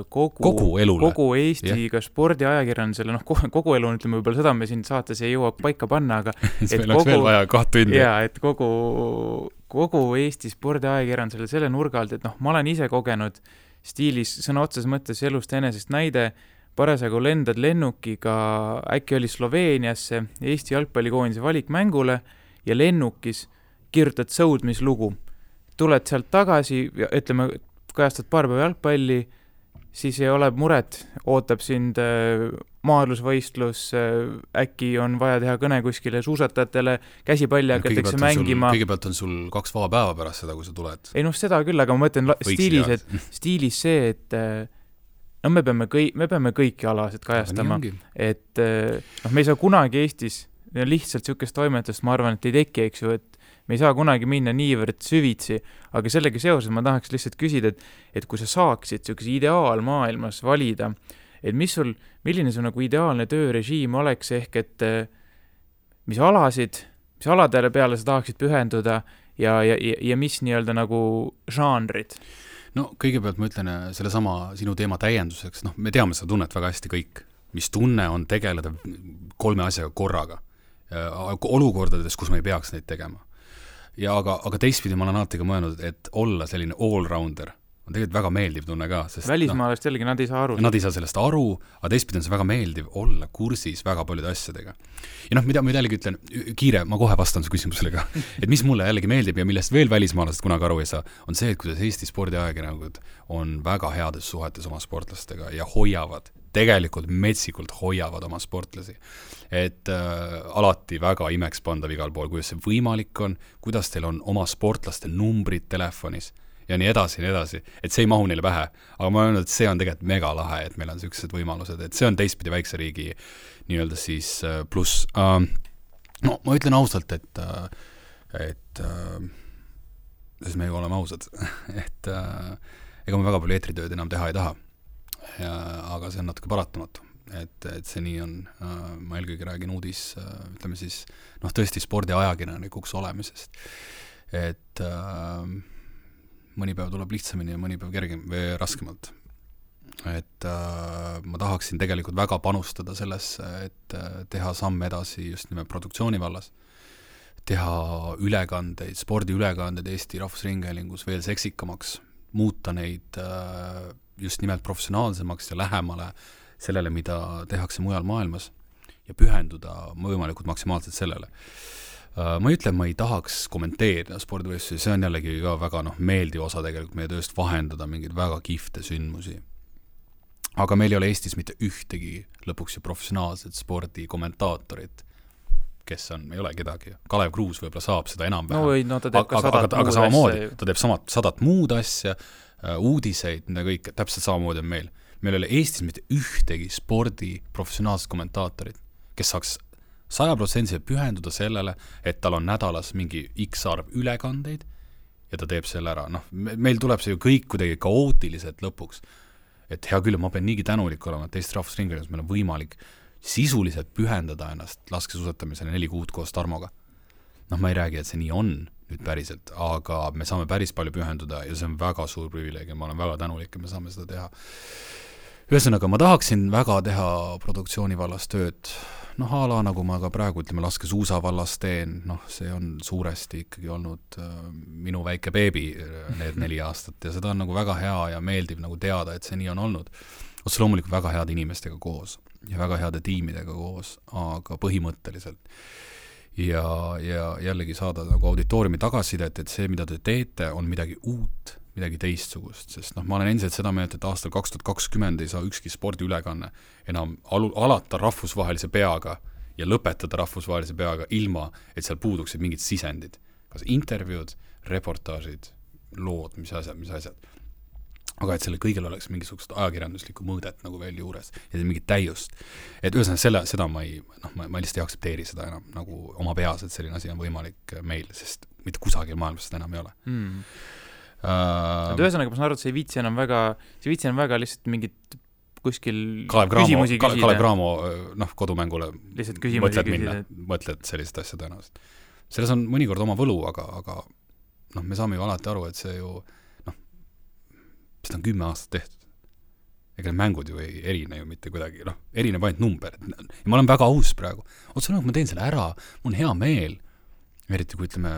kogu elule. Kogu Eesti ka spordiajakirjandusele, kogu elu ütleme võib-olla seda me siin saates ei jõua paika panna, aga meil oleks veel vaja 2 tundi. Ja, et kogu Eesti spordiajakirjandusele selle nurga alt, et ma olen ise kogenud stiilis sõna otses mõttes elust enesest näide, parasagu lendad lennukiga, äkki oli Sloveeniasse Eesti jalgpallikoondise valikmängule ja lennukis kirjutad sõudmislugu. Tuled sealt tagasi, ütleme, kajastad paar päeva jalgpalli, siis ei ole muret, ootab sind maadlusvõistlus, äkki on vaja teha kõne kuskile suusatajatele, käsipalli hakatakse mängima. Kõigepealt on sul 2 vaba päeva pärast seda, kui sa tuled. Ei seda küll, aga ma mõtlen stiilis see, et me peame kõiki alasid kajastama, et me ei saa kunagi Eestis lihtsalt sükest toimetust, ma arvan, et ei teki, eks ju, et me ei saa kunagi minna niivõrd süvitsi, aga sellega seoses ma tahaks lihtsalt küsida, et kui sa saaksid sükese ideaalmaailmas valida, et milline su nagu ideaalne töörežiim oleks ehk, et mis aladele peale sa tahaksid pühenduda ja mis nii-öelda nagu žanrid? Kõigepealt ma ütlen selle sama sinu teema täienduseks, me teame seda tunnet väga hästi kõik, mis tunne on tegeleda 3 asjaga korraga, olukordades, kus me ei peaks neid tegema. Ja aga teistpidi ma olen alati ka mõelnud, et olla selline all-rounder on tegelikult väga meeldiv tunne ka, sest välismaalast jällegi nad ei saa aru. Nad ei saa sellest aru, aga teistpidi on see väga meeldiv olla kursis väga paljude asjadega. Ja mida ma jällegi ütlen, kiire, ma kohe vastan su küsimusele ka, et mis mulle jällegi meeldib ja millest veel välismaalased kunagi aru ei saa, on see, et kuidas Eesti spordiajakirjanikud on väga heades suhetes oma sportlastega ja hoiavad, tegelikult metsikult hoiavad oma sportlasi. Et alati väga imeks pandav igal pool, kuidas see võimalik on, kuidas teil on oma sportlaste numbrid telefonis ja nii edasi, et see ei mahu neile pähe. Aga ma olen öelnud, et see on tegelikult mega lahe, et meil on sellised võimalused, et see on teistpidi väikse riigi nii-öelda siis pluss. No ma ütlen ausalt, et sest me oleme ausad, et ega me väga palju eetritööd enam teha ei taha. Aga see on natuke paratamatu, et see nii on. Ma eelkõige räägin uudis, ütleme siis, tõesti spordiajakirjanikuks olemisest, et mõni päev tuleb lihtsamini ja mõni päev kergem või raskemalt. Et ma tahaksin tegelikult väga panustada sellesse, et teha samm edasi just nimelt produktsiooni vallas, teha ülekandeid, spordiülekandeid Eesti Rahvusringhäälingus veel seksikamaks, muuta neid just nimelt professionaalsemaks ja lähemale sellele, mida tehakse mujal maailmas ja pühenduda võimalikult maksimaalselt sellele. Ma ei ütle, ma ei tahaks kommenteerida spordivõistlusi, see on jällegi ka väga meeldiv osa tegelikult meie tööst vahendada mingeid väga kihvte sündmusi. Aga meil ei ole Eestis mitte ühtegi lõpuks ju professionaalset spordikommentaatorit, kes on, ei ole kedagi. Kalev Kruus võib-olla saab seda enam vähem. No ta teeb ka 100 muud samamoodi, ta teeb 100 muud asja, uudiseid, mida kõik, täpselt samamoodi on meil. Meil ei ole Eestis mitte ühtegi spordi professionaalset kommentaatorit, kes saaks 100% pühenduda sellele, et tal on nädalas mingi X arv ülekandeid ja ta teeb selle ära. Meil tuleb see ju kõik kuidagi kaootiliselt lõpuks. Et hea küll, ma pean niigi tänulik olema, et Eesti Rahvusringhäälingus meil on võimalik sisuliselt pühendada ennast laskesuusatamisele 4 kuud koos Tarmoga. Ma ei räägi, et see nii on nüüd päriselt, aga me saame päris palju pühenduda ja see on väga suur privileeg ja ma olen väga tänulik, et me saame seda teha. Ühesõnaga, ma tahaksin väga teha produktsiooni vallas tööd. Ala nagu ma ka praegu, ütleme, laskesuusa vallas teen, see on suuresti ikkagi olnud minu väike beebi need 4 aastat ja seda on nagu väga hea ja meeldiv nagu teada, et see nii on olnud. Otse loomulikult väga head inimestega koos ja väga heade tiimidega koos, aga põhimõtteliselt. Ja jällegi saada nagu auditooriumi tagasisidet, et see, mida te teete, on midagi uut, midagi teistsugust, sest ma olen endiselt seda meelt, et aastal 2020 ei saa ükski spordiülekanne enam alata rahvusvahelise peaga ja lõpetada rahvusvahelise peaga ilma, et seal puuduksid mingid sisendid. Kas intervjuud, reportaažid, lood, mis asjad. Aga et selle kõigil oleks mingisugust ajakirjanduslikku mõõdet nagu veel juures ja mingit täiust. Et ühesõnaga seda ma lihtsalt ei aksepteeri seda enam nagu oma peas, et selline asi on võimalik meil, sest mitte kusagil maailmas seda enam ei ole. Ühesõnaga, ma saan aru, et see ei viitsi enam väga lihtsalt mingit kuskil küsimusi küsida. Kalev Cramo kodumängule lihtsalt küsimusi küsida. Mõtled sellist asja tõenäoliselt. Selles on mõnikord oma võlu, aga me saame ju alati aru, et see ju seda on 10 aastat tehtud. Ega need mängud ju ei erine ju mitte kuidagi, erineb ainult number. Ja ma olen väga aus praegu. Otse ma teen selle ära, mul on hea meel, eriti kui ütleme,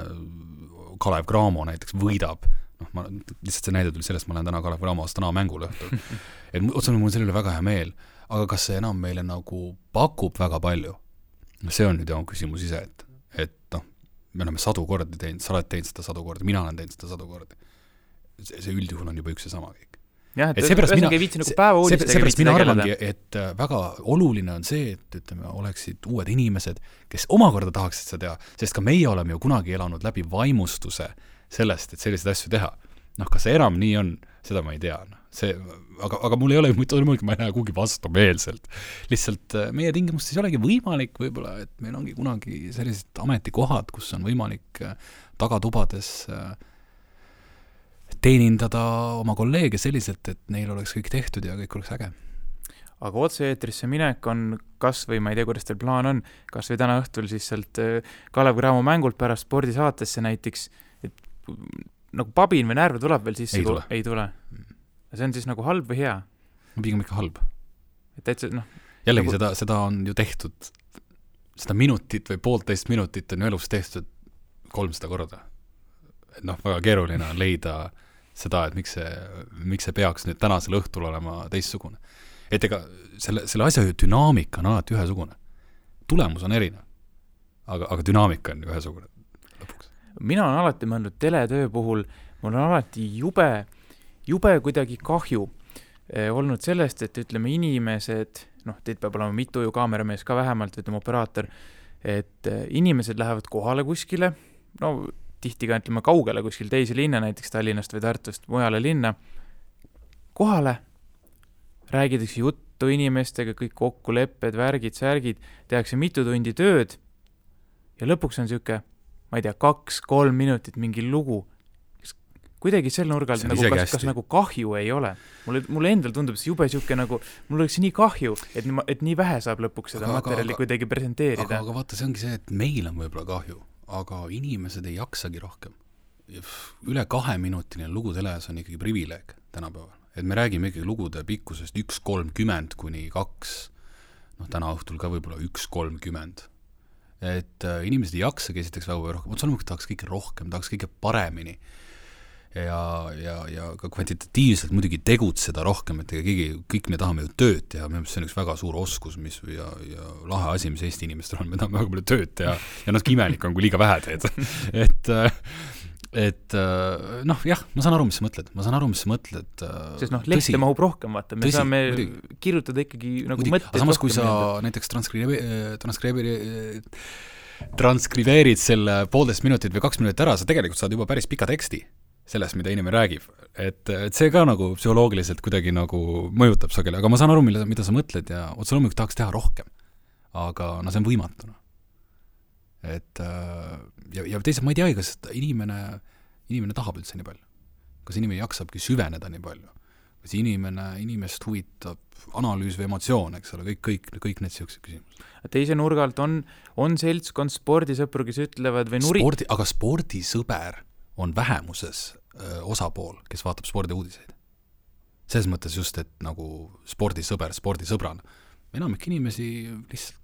Kalev Cramo näiteks võidab. Lihtsalt see näide tuli sellest, ma olen täna Kalev Cramo Astana mängul õhtul. Et otse mul on selle üle väga hea meel, aga kas see enam meile nagu pakub väga palju? See on nüüd jah küsimus ise, et me oleme 100 kordi teinud, sa oled teinud seda 100 kordi, mina olen teinud seda 100 kordi. See üldjuhul on juba üks ja sama kõik. Jah, et ühesõnaga ei viitsi nagu päeva uudistega viitsi mina arvangi, et väga oluline on see, et ütleme, oleksid uued inimesed, kes omakorda tahaksid seda teha, sest ka meie oleme ju kunagi elanud läbi vaimustuse sellest, et selliseid asju teha. Kas see enam nii on, seda ma ei tea. Aga mul ei ole, ma ei näe kuhugi vastumeelselt. Lihtsalt meie tingimustes ei olegi võimalik võib-olla, et meil ongi kunagi sellised ametikohad, kus on võimalik tagatubades teenindada oma kolleege selliselt, et neil oleks kõik tehtud ja kõik oleks äge. Aga otse-eetrisse minek on kas või, ma ei tea, kuidas teil plaan on, kas või täna õhtul siis sealt Kalev Cramo mängult pärast spordisaatesse näiteks, et nagu pabin või närve tuleb veel sisse? Ei tule. See on siis nagu halb või hea? Pigem ikka halb. Jällegi nagu... seda on ju tehtud, seda minutit või 1,5 minutit on ju elus tehtud 300 korda. Väga keeruline on leida seda, et miks see peaks nüüd tänasel õhtul olema teistsugune. Et ega selle asja dünaamika on alati ühesugune. Tulemus on erinev, aga dünaamika on ühesugune lõpuks. Mina olen alati mõelnud teletöö puhul, mul on alati jube kuidagi kahju olnud sellest, et ütleme inimesed, teid peab olema mitu ju kaameramees ka vähemalt, ütleme operaator, et inimesed lähevad kohale kuskile, tihti ka ütleme kaugele kuskil teise linna, näiteks Tallinnast või Tartust mujale linna, kohale räägitakse juttu inimestega, kõik kokkulepped, värgid, särgid, tehakse mitu tundi tööd ja lõpuks on siuke, ma ei tea, 2-3 minutit mingi lugu. Kuidagi sel nurgal nagu, kas nagu kahju ei ole. Mulle endal tundub see jube siuke nagu, mul oleks nii kahju, et nii vähe saab lõpuks seda materjali kuidagi presenteerida. Aga vaata, see ongi see, et meil on võib-olla kahju, aga inimesed ei jaksagi rohkem. Üle 2-minutiline lugu teles on ikkagi privileeg tänapäeval. Et me räägime ikkagi lugude pikkusest 1.30 kuni 2, täna õhtul ka võib-olla 1.30. Et inimesed ei jaksagi esiteks väga rohkem, otsalemalt tahaks kõike rohkem, tahaks kõike paremini ja ka kvantitatiivselt muidugi tegutseda rohkem, et kõik me tahame ju tööd teha, see on üks väga suur oskus ja lahe asi, mis Eesti inimestel on, me tahame väga palju tööd teha ja natuke imelik on, kui liiga vähe teed. Jah, ma saan aru, mis sa mõtled. Sest lehte mahub rohkem, vaata, me saame kirjutada ikkagi nagu mõtteid. Aga samas, kui sa näiteks transkribeerid selle 1,5 minutit või 2 minutit ära, sa tegelikult saad juba päris pika teksti sellest, mida inimene räägib. Et see ka nagu psühholoogiliselt kuidagi nagu mõjutab sageli, aga ma saan aru, mida sa mõtled ja otse loomulikult tahaks teha rohkem. Aga see on võimatu. Et ja teisalt ma ei tea, kas inimene tahab üldse nii palju. Kas inimene jaksabki süveneda nii palju. Kas inimest huvitab analüüs või emotsioon, eks ole, kõik need sellised küsimused. Teise nurgalt on seltskond spordisõpru, kes ütlevad või aga spordisõber on vähemuses osapool, kes vaatab spordiuudiseid. Selles mõttes just, et nagu spordisõbrana. Enamik inimesi lihtsalt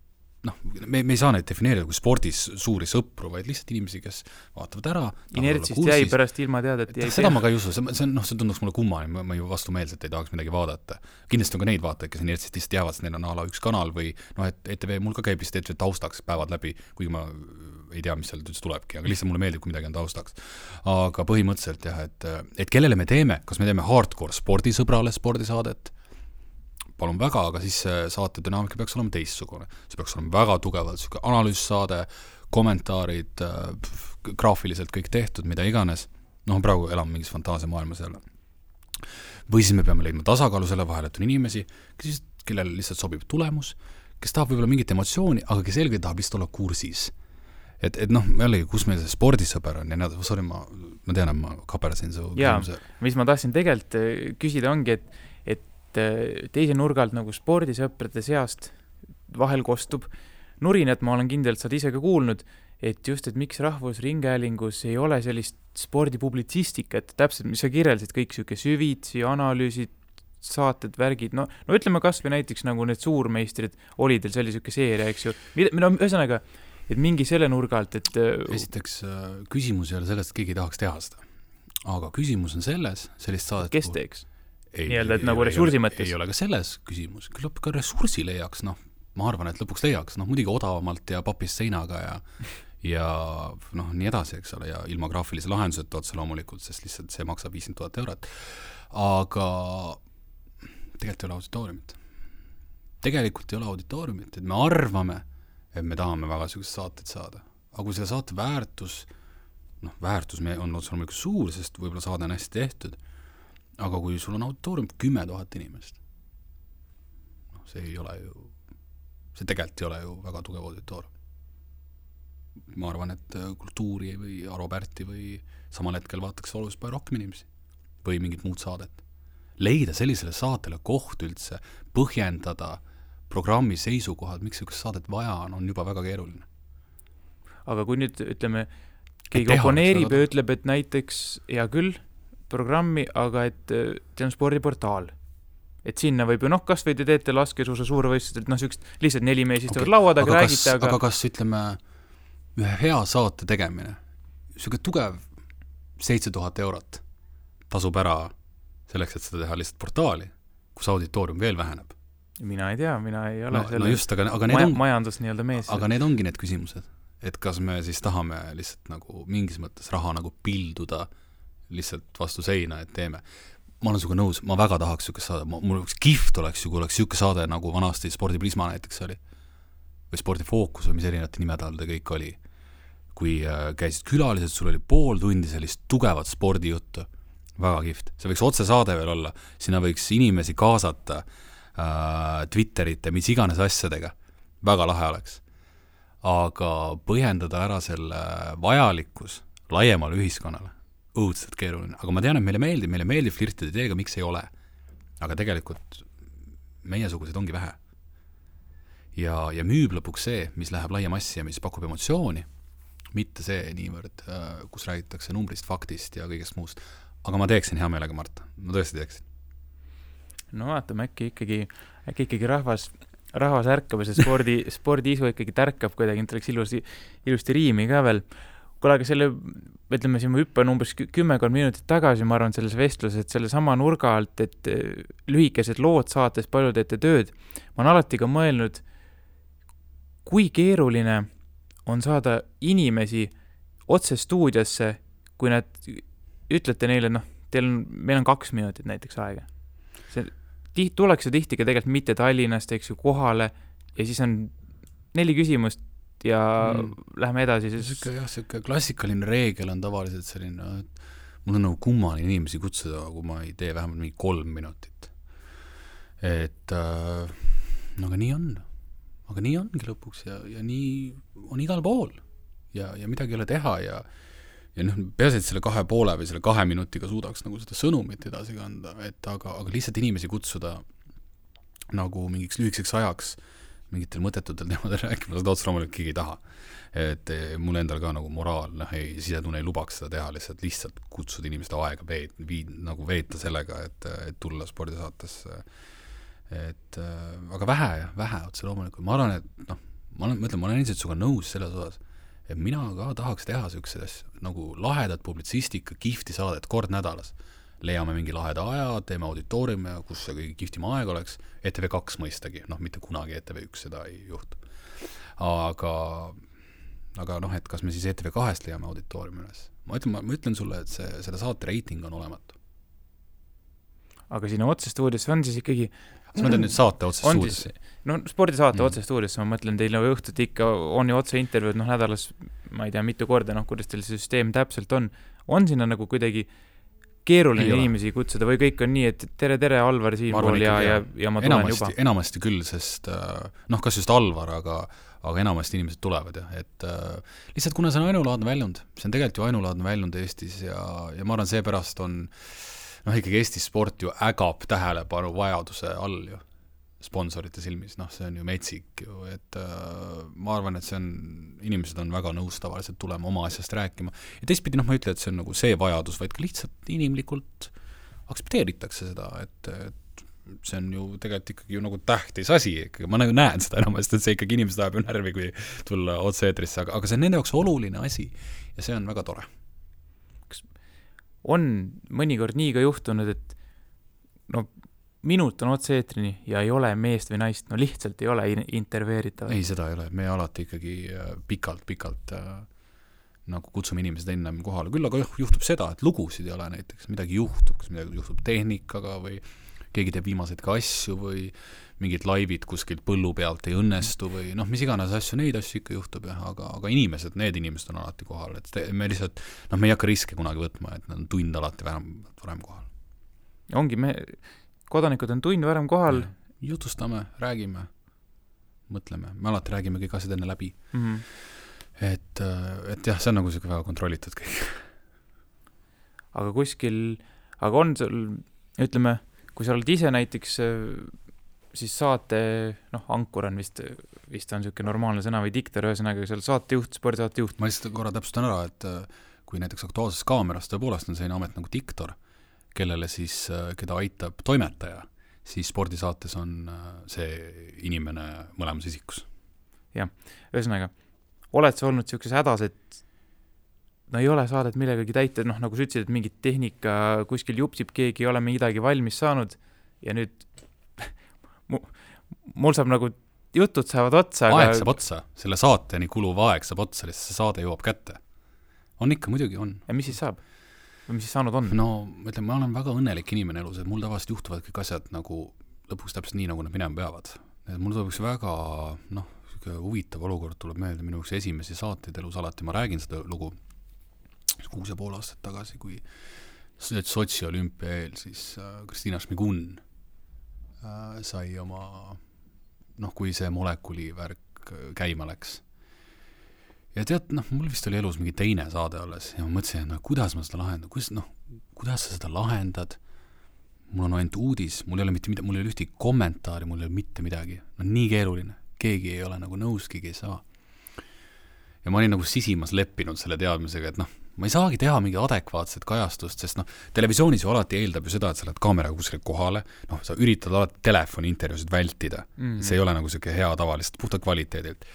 me ei saa neid defineerida kui spordis suuri sõpru, vaid lihtsalt inimesi, kes vaatavad ära. Inertsist jäi pärast ilma teada, et jäi seda ma ka ei usu, see tunduks mulle kummani, ma ju vastumeelselt ei tahaks midagi vaadata. Kindlasti on ka neid vaatajaid, kes inertsist lihtsalt jäävad, neil on ala üks kanal või et ETV, mul ka käib vist ETV taustaks päevad läbi, kuigi ma ei tea, mis seal üldse tulebki, aga lihtsalt mulle meeldib, kui midagi on taustaks. Aga põhimõtteliselt jah, et kellele me teeme, kas me teeme hardcore spordisõbrale spordisaadet, palun väga, aga siis saate dünaamika peaks olema teistsugune. See peaks olema väga tugevalt analüüssaade, kommentaarid, graafiliselt kõik tehtud, mida iganes. Praegu elame mingis fantaasiamaailmas jälle. Või siis me peame leidma tasakaalu selle vahel, et on inimesi, kellel lihtsalt sobib tulemus, kes tahab võib-olla mingit emotsiooni, aga kes selgelt tahab lihtsalt olla kursis. Et jällegi, kus meil see spordisõber on ja sorry, ma tean, et ma kaperdasin su küsimuse. Mis ma tahtsin tegelikult küsida ongi, et teise nurgalt nagu spordisõprade seast vahel kostub nurinat, ma olen kindlalt saad ise ka kuulnud, et just, et miks Rahvusringhäälingus ei ole sellist spordipublitsistikat, täpselt, mis sa kirjeldasid, kõik siuke süvitsi, analüüsid, saated, värgid, ütleme kas või näiteks nagu need suurmeistrid oli teil sellisüke seeria, eks ju, ühesõnaga, et mingi selle nurgalt, et esiteks küsimus ei ole sellest, et keegi tahaks teha seda, aga küsimus on selles, sellist saadet kes teeks? Nii-öelda, et nagu ressursi mõttes. Ei ole ka selles küsimus. Küllap ka ressursi leiaks, ma arvan, et lõpuks leiaks, muidugi odavamalt ja papist seinaga ja nii edasi, eks ole, ja ilma graafilise lahenduseta otse loomulikult, sest lihtsalt see maksab 50 000 eurot. Aga tegelikult ei ole auditooriumit. Et me arvame, et me tahame väga sellised saated saada. Aga kui selle saate väärtus on otse loomulikult suur, sest võib-olla saade on hästi tehtud, aga kui sul on auditoorium 10 000 inimest, see tegelikult ei ole ju väga tugev auditoorium. Ma arvan, et kultuuri või Aro Pärti või samal hetkel vaataks oluliselt palju rohkem inimesi või mingit muud saadet. Leida sellisele saatele koht üldse, põhjendada programmi seisukohad, miks sellist saadet vaja on juba väga keeruline. Aga kui nüüd, ütleme, keegi oponeerib ja ütleb, et näiteks, hea küll, programmi, aga et see on spordiportaal. Et sinna võib ju, kas või te teete laskesuusa suurvõistlused, lihtsalt 4 mees istuvad lauad, aga räägite, aga kas, ütleme, ühe hea saate tegemine, selline tugev 7 000 eurot, tasub ära selleks, et seda teha lihtsalt portaali, kus auditoorium veel väheneb. Mina ei tea, mina ei ole no just, aga need majandus nii-öelda mees. Aga need ongi need küsimused, et kas me siis tahame lihtsalt nagu mingis mõttes raha nagu pilduda lihtsalt vastu seina, et teeme. Ma olen sinuga nõus, ma väga tahaks siukest saade, mul üks kihvt oleks ju, kui oleks siuke saade nagu vanasti Spordi Prisma näiteks oli või Spordi Fookus või mis erinevate nimede all ta kõik oli, kui käisid külalised, sul oli pool tundi sellist tugevat spordijuttu, väga kihvt, see võiks otsesaade veel olla, sinna võiks inimesi kaasata Twitterite, mis iganes asjadega, väga lahe oleks, aga põhjendada ära selle vajalikkus laiemale ühiskonnale õudselt keeruline, aga ma tean, et meile meeldib flirtida ideega, miks ei ole. Aga tegelikult meiesugused ongi vähe. Ja müüb lõpuks see, mis läheb laia massi ja mis pakub emotsiooni, mitte see niivõrd, kus räägitakse numbrist, faktist ja kõigest muust. Aga ma teeksin hea meelega, Mart. Ma tõesti teeksin. No vaatame, äkki ikkagi rahvas ärkab ja see spordiisu ikkagi tärkab kuidagi, et oleks ilusti riimi ka veel. Kuule, aga selle, ütleme siin, ma hüppan umbes 10 minutit tagasi, ma arvan, selles vestluses, et selle sama nurga alt, et lühikesed lood saates palju teete tööd, ma olen alati ka mõelnud, kui keeruline on saada inimesi otse stuudiosse, kui nad ütlete neile, meil on 2 minutit näiteks aega. Tuleks tihti ka tegelikult mitte Tallinnast, eks ju, kohale ja siis on 4 küsimust ja läheme edasi. Siuke klassikaline reegel on tavaliselt selline, et mul on nagu kummaline inimesi kutsuda, kui ma ei tee vähemalt mingi 3 minutit. Et aga nii on. Aga nii ongi lõpuks ja nii on igal pool ja midagi ei ole teha ja peaasi, et selle 2,5 või selle 2 minutiga suudaks nagu seda sõnumit edasi kanda, et aga lihtsalt inimesi kutsuda nagu mingiks lühikeseks ajaks mingitel mõttetutel teemadel rääkima, seda otsa loomulikult keegi ei taha. Et mul endal ka nagu moraal, sisetunne ei lubaks seda teha, lihtsalt kutsuda inimeste aega nagu veeta sellega, et tulla spordisaatesse. Aga vähe otsa loomulikult. Ma arvan, et ma olen ilmselt suga nõus selles osas, et mina ka tahaks teha sellised nagu lahedat publitsistika kihvti saadet kord nädalas. Leiame mingi laheda aja, teeme auditooriumi, kus see kõige kihvtima aeg oleks, ETV2 mõistagi, mitte kunagi ETV1 seda ei juhtu. Aga et kas me siis ETV2-st leiame auditooriumi üles? Ma ütlen sulle, et selle saate reiting on olematu. Aga sinna otsestuudiosse on siis ikkagi... Kas ma teen nüüd saate otsestuudiosse? Spordisaate otsestuudiosse, ma mõtlen, teil õhtut ikka on ju otse intervjuud, nädalas, ma ei tea, mitu korda, kuidas teil see süsteem täpselt on. On sinna nagu kuidagi keeruline inimesi kutsuda või kõik on nii, et tere, Alvar siinpool ja ma tulen juba? Enamasti küll, sest kas just Alvar, aga enamasti inimesed tulevad et lihtsalt kuna see on ainulaadne väljund, see on tegelikult ju ainulaadne väljund Eestis ja ma arvan, seepärast on ikkagi Eestis sport ju ägab tähelepanu vajaduse all ju sponsorite silmis, see on ju metsik ju, et ma arvan, et inimesed on väga nõus tavaliselt tulema oma asjast rääkima ja teistpidi ma ei ütle, et see on nagu see vajadus, vaid ka lihtsalt inimlikult aktsepteeritakse seda, et see on ju tegelikult ikkagi ju nagu tähtis asi, ma nagu näen seda enamasti, et see ikkagi inimesed ajab ju närvi, kui tulla otse-eetrisse, aga see on nende jaoks oluline asi ja see on väga tore. Kas on mõnikord nii ka juhtunud, et minut on otse-eetrini ja ei ole meest või naist, lihtsalt ei ole intervjueeritav. Ei, seda ei ole, me alati ikkagi pikalt nagu kutsume inimesed ennem kohale. Küll aga juhtub seda, et lugusid ei ole näiteks, midagi juhtub, kas midagi juhtub tehnikaga või keegi teeb viimaseid ka asju või mingid laivid kuskilt põllu pealt ei õnnestu või mis iganes asju, neid asju ikka juhtub, aga need inimesed on alati kohal, et me lihtsalt, me ei hakka riske kunagi võtma, et nad on tund alati varem kohal. Ongi, kodanikud on tund varem kohal. Jutustame, räägime, mõtleme. Me alati räägime kõik asjad enne läbi. Et jah, see on nagu väga kontrollitud kõik. Aga on sul, ütleme, kui sa oled ise näiteks siis saate, ankur on vist on selline normaalne sõna või diktor, ühesõnaga, kui sa oled saatejuht, spordisaatejuht. Ma lihtsalt korra täpsustan ära, et kui näiteks Aktuaalses Kaameras tõepoolest on selline amet nagu diktor, kellele siis, keda aitab toimetaja, siis spordisaates on see inimene mõlemas isikus. Jah, ühesõnaga, oled sa olnud sellises hädas, et no ei ole saadet millegagi täita, noh, nagu sa ütlesid, et mingit tehnika kuskil jupsib, keegi ei ole midagi valmis saanud ja nüüd mul saab nagu jutud saavad otsa. Aeg saab otsa, selle saateni kuluv aeg saab otsa, lihtsalt see saade jõuab kätte. On ikka, muidugi on. Ja mis siis saab? Või mis siis saanud on? No, mõtlen, ma olen väga õnnelik inimene elus, et mul tavaliselt juhtuvad kõik asjad nagu lõpuks täpselt nii, nagu nad minema peavad. Et mul tuleb üks väga, huvitav olukord tuleb meelde minu üks esimesi saateid elus alati. Ma räägin seda lugu 6,5 aastat tagasi, kui Sotši olümpia eel siis Kristina Šmigun sai oma, kui see molekuli värk käima läks. Ja tead, mul vist oli elus mingi teine saade alles ja ma mõtlesin, kuidas ma seda lahendan, kuidas sa seda lahendad, mul on ainult uudis, mul ei ole mitte midagi, mul ei ole ühtegi kommentaari, mul ei ole mitte midagi, nii keeruline, keegi ei ole nagu nõus, keegi ei saa. Ja ma olin nagu sisimas leppinud selle teadmisega, et ma ei saagi teha mingi adekvaatset kajastust, sest televisioonis ju alati eeldab ju seda, et sa lähed kaameraga kuskile kohale, sa üritad alati telefoni intervjuusid vältida. See ei ole nagu selline hea tavalist, puhta kvaliteedilt.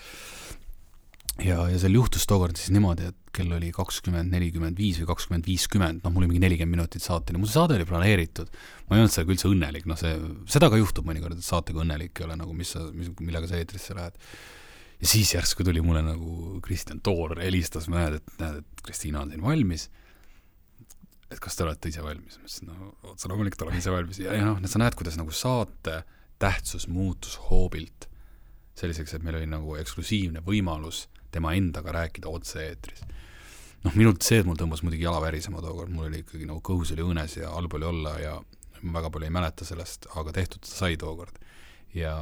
Ja seal juhtus tookord siis niimoodi, et kell oli 20:45 või 20:50, mul oli mingi 40 minutit saateni, mul see saade oli planeeritud, ma ei olnud sellega üldse õnnelik, seda ka juhtub mõnikord, et saatega õnnelik ei ole, nagu millega sa eetrisse lähed. Ja siis järsku tuli mulle nagu Kristjan Toor helistas, ma näed, et Kristiina on siin valmis, et kas te olete ise valmis? Ma ütlesin, otsa loomulikult oleme ise valmis. Ja sa näed, kuidas nagu saate tähtsus muutus hoobilt selliseks, et meil oli nagu eksklusiivne võimalus tema endaga rääkida otse eetris. Minult see, et mul tõmbas muidugi jala värisema tookord, mul oli ikkagi nagu kõhus oli õnes ja halb oli olla ja ma väga palju ei mäleta sellest, aga tehtud sai tookord. Ja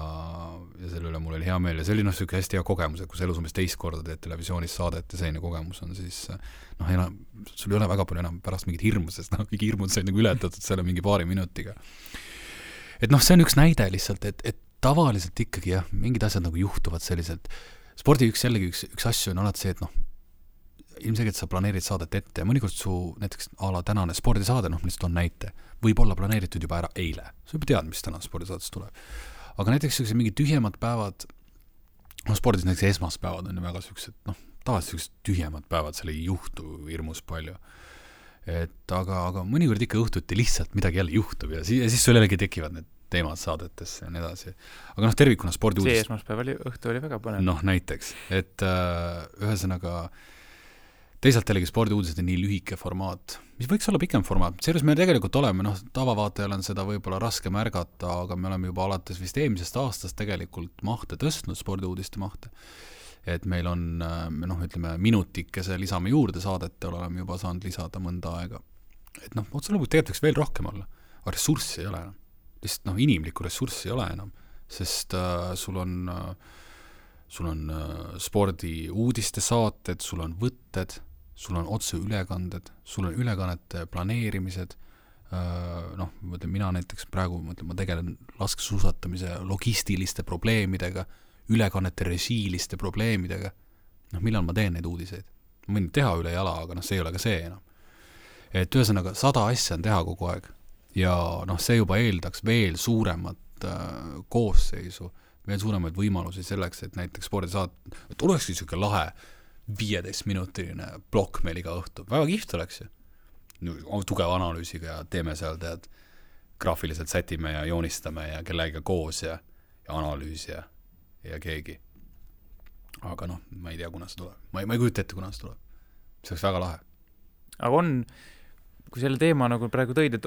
selle üle mul oli hea meel ja see oli selline hästi hea kogemus, et kui sa elus umbes teist korda teed televisioonis saadet ja selline kogemus on, siis sul ei ole väga palju enam pärast mingit hirmu, sest kõik hirmud said nagu ületatud selle mingi paari minutiga. Et see on üks näide lihtsalt, et tavaliselt ikkagi mingid asjad nagu juhtuvad selliselt. Spordi üks asju on alati see, et ilmselgelt sa planeerid saadet ette ja mõnikord su näiteks ala tänane spordisaade, lihtsalt on näite, võib olla planeeritud juba ära eile. Sa juba tead, mis täna spordisaates tuleb. Aga näiteks mingi tühjemad päevad, spordis näiteks esmaspäevad on ju väga sellised, tavaliselt tühjemad päevad, seal ei juhtu hirmus palju. Aga mõnikord ikka õhtuti lihtsalt midagi jälle juhtub ja siis sul jällegi tekivad need teemad saadetesse ja nii edasi. Aga tervikuna spordiuudis... See esmaspäev õhtu oli väga põnev. Näiteks, et ühesõnaga teisalt jällegi spordiuudised on nii lühike formaat, mis võiks olla pikem formaat. Seejuures me tegelikult oleme, tavavaatajal on seda võib-olla raske märgata, aga me oleme juba alates vist eelmisest aastast tegelikult mahte tõstnud, spordiuudiste mahte. Et meil on, ütleme, minutikese lisame juurde saadete, oleme juba saanud lisada mõnda aega. Et otse lõpuks tegelikult veel rohkem olla, aga ressurssi ei ole enam. Lihtsalt inimlikku ressurssi ei ole enam, sest sul on spordi uudiste saated, sul on võtted, sul on otse ülekanded, sul on ülekannete planeerimised, mina näiteks praegu ma tegelen laskesuusatamise logistiliste probleemidega, ülekannete režiiliste probleemidega, millal ma teen neid uudiseid? Ma võin teha üle jala, aga see ei ole ka see enam. Et ühesõnaga 100 asja on teha kogu aeg. Ja see juba eeldaks veel suuremat koosseisu, veel suuremaid võimalusi selleks, et näiteks spordisaat, et olekski selline lahe 15-minutiline plokk meil iga õhtu. Väga kihvt oleks ju. Tugeva analüüsiga ja teeme seal, graafiliselt sätime ja joonistame ja kellega koos ja analüüs ja keegi. Aga ma ei tea, kuna see tuleb. Ma ei kujuta ette, kuna see tuleb. See oleks väga lahe. Aga kui selle teema nagu praegu tõid, et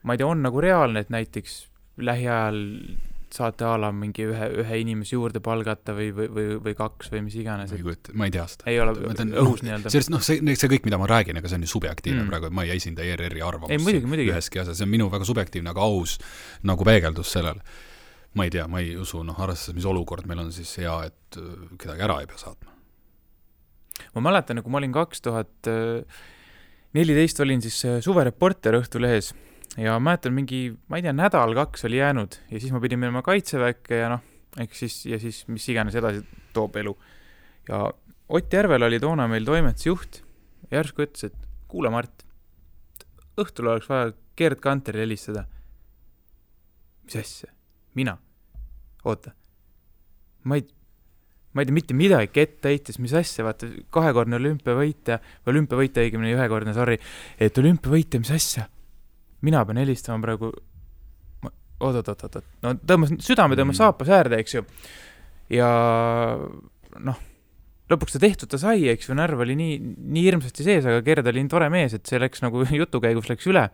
ma ei tea, on nagu reaalne, et näiteks lähiajal saate ala mingi ühe inimese juurde palgata või kaks või mis iganes. Ma ei tea seda. Ei ole õhus nii-öelda. See kõik, mida ma räägin, aga see on ju subjektiivne praegu, et ma ei esinda ERR-i arvamust. Ei, muidugi. Üheski asja, see on minu väga subjektiivne, aga aus nagu peegeldus sellele. Ma ei tea, ma ei usu, arvestades, mis olukord meil on siis hea, et kedagi ära ei pea saatma. Ma mäletan, kui ma olin 2014 olin siis suvereporter Õhtulehes ja mäletan mingi, ma ei tea, nädal 2 oli jäänud ja siis ma pidin minema kaitseväkke ja siis mis iganes edasi toob elu. Ja Ott Järvel oli toona meil toimetusjuht ja järsku ütles, et kuule Mart, õhtul oleks vaja Gerd Kanteril helistada. Mis asja? Mina? Oota. Ma ma ei tea, mitte midagi ette heitis, mis asja, vaata, 2-kordne olümpiavõitja, õigemini 1-kordne, sorry, et olümpiavõitja, mis asja? Mina pean helistama praegu, oot, no südame tõmbas saapas äärde, eks ju, ja noh, lõpuks ta tehtud ta sai, eks ju, närv oli nii hirmsasti sees, aga Gerd oli nii tore mees, et see läks nagu jutukäigus läks üle.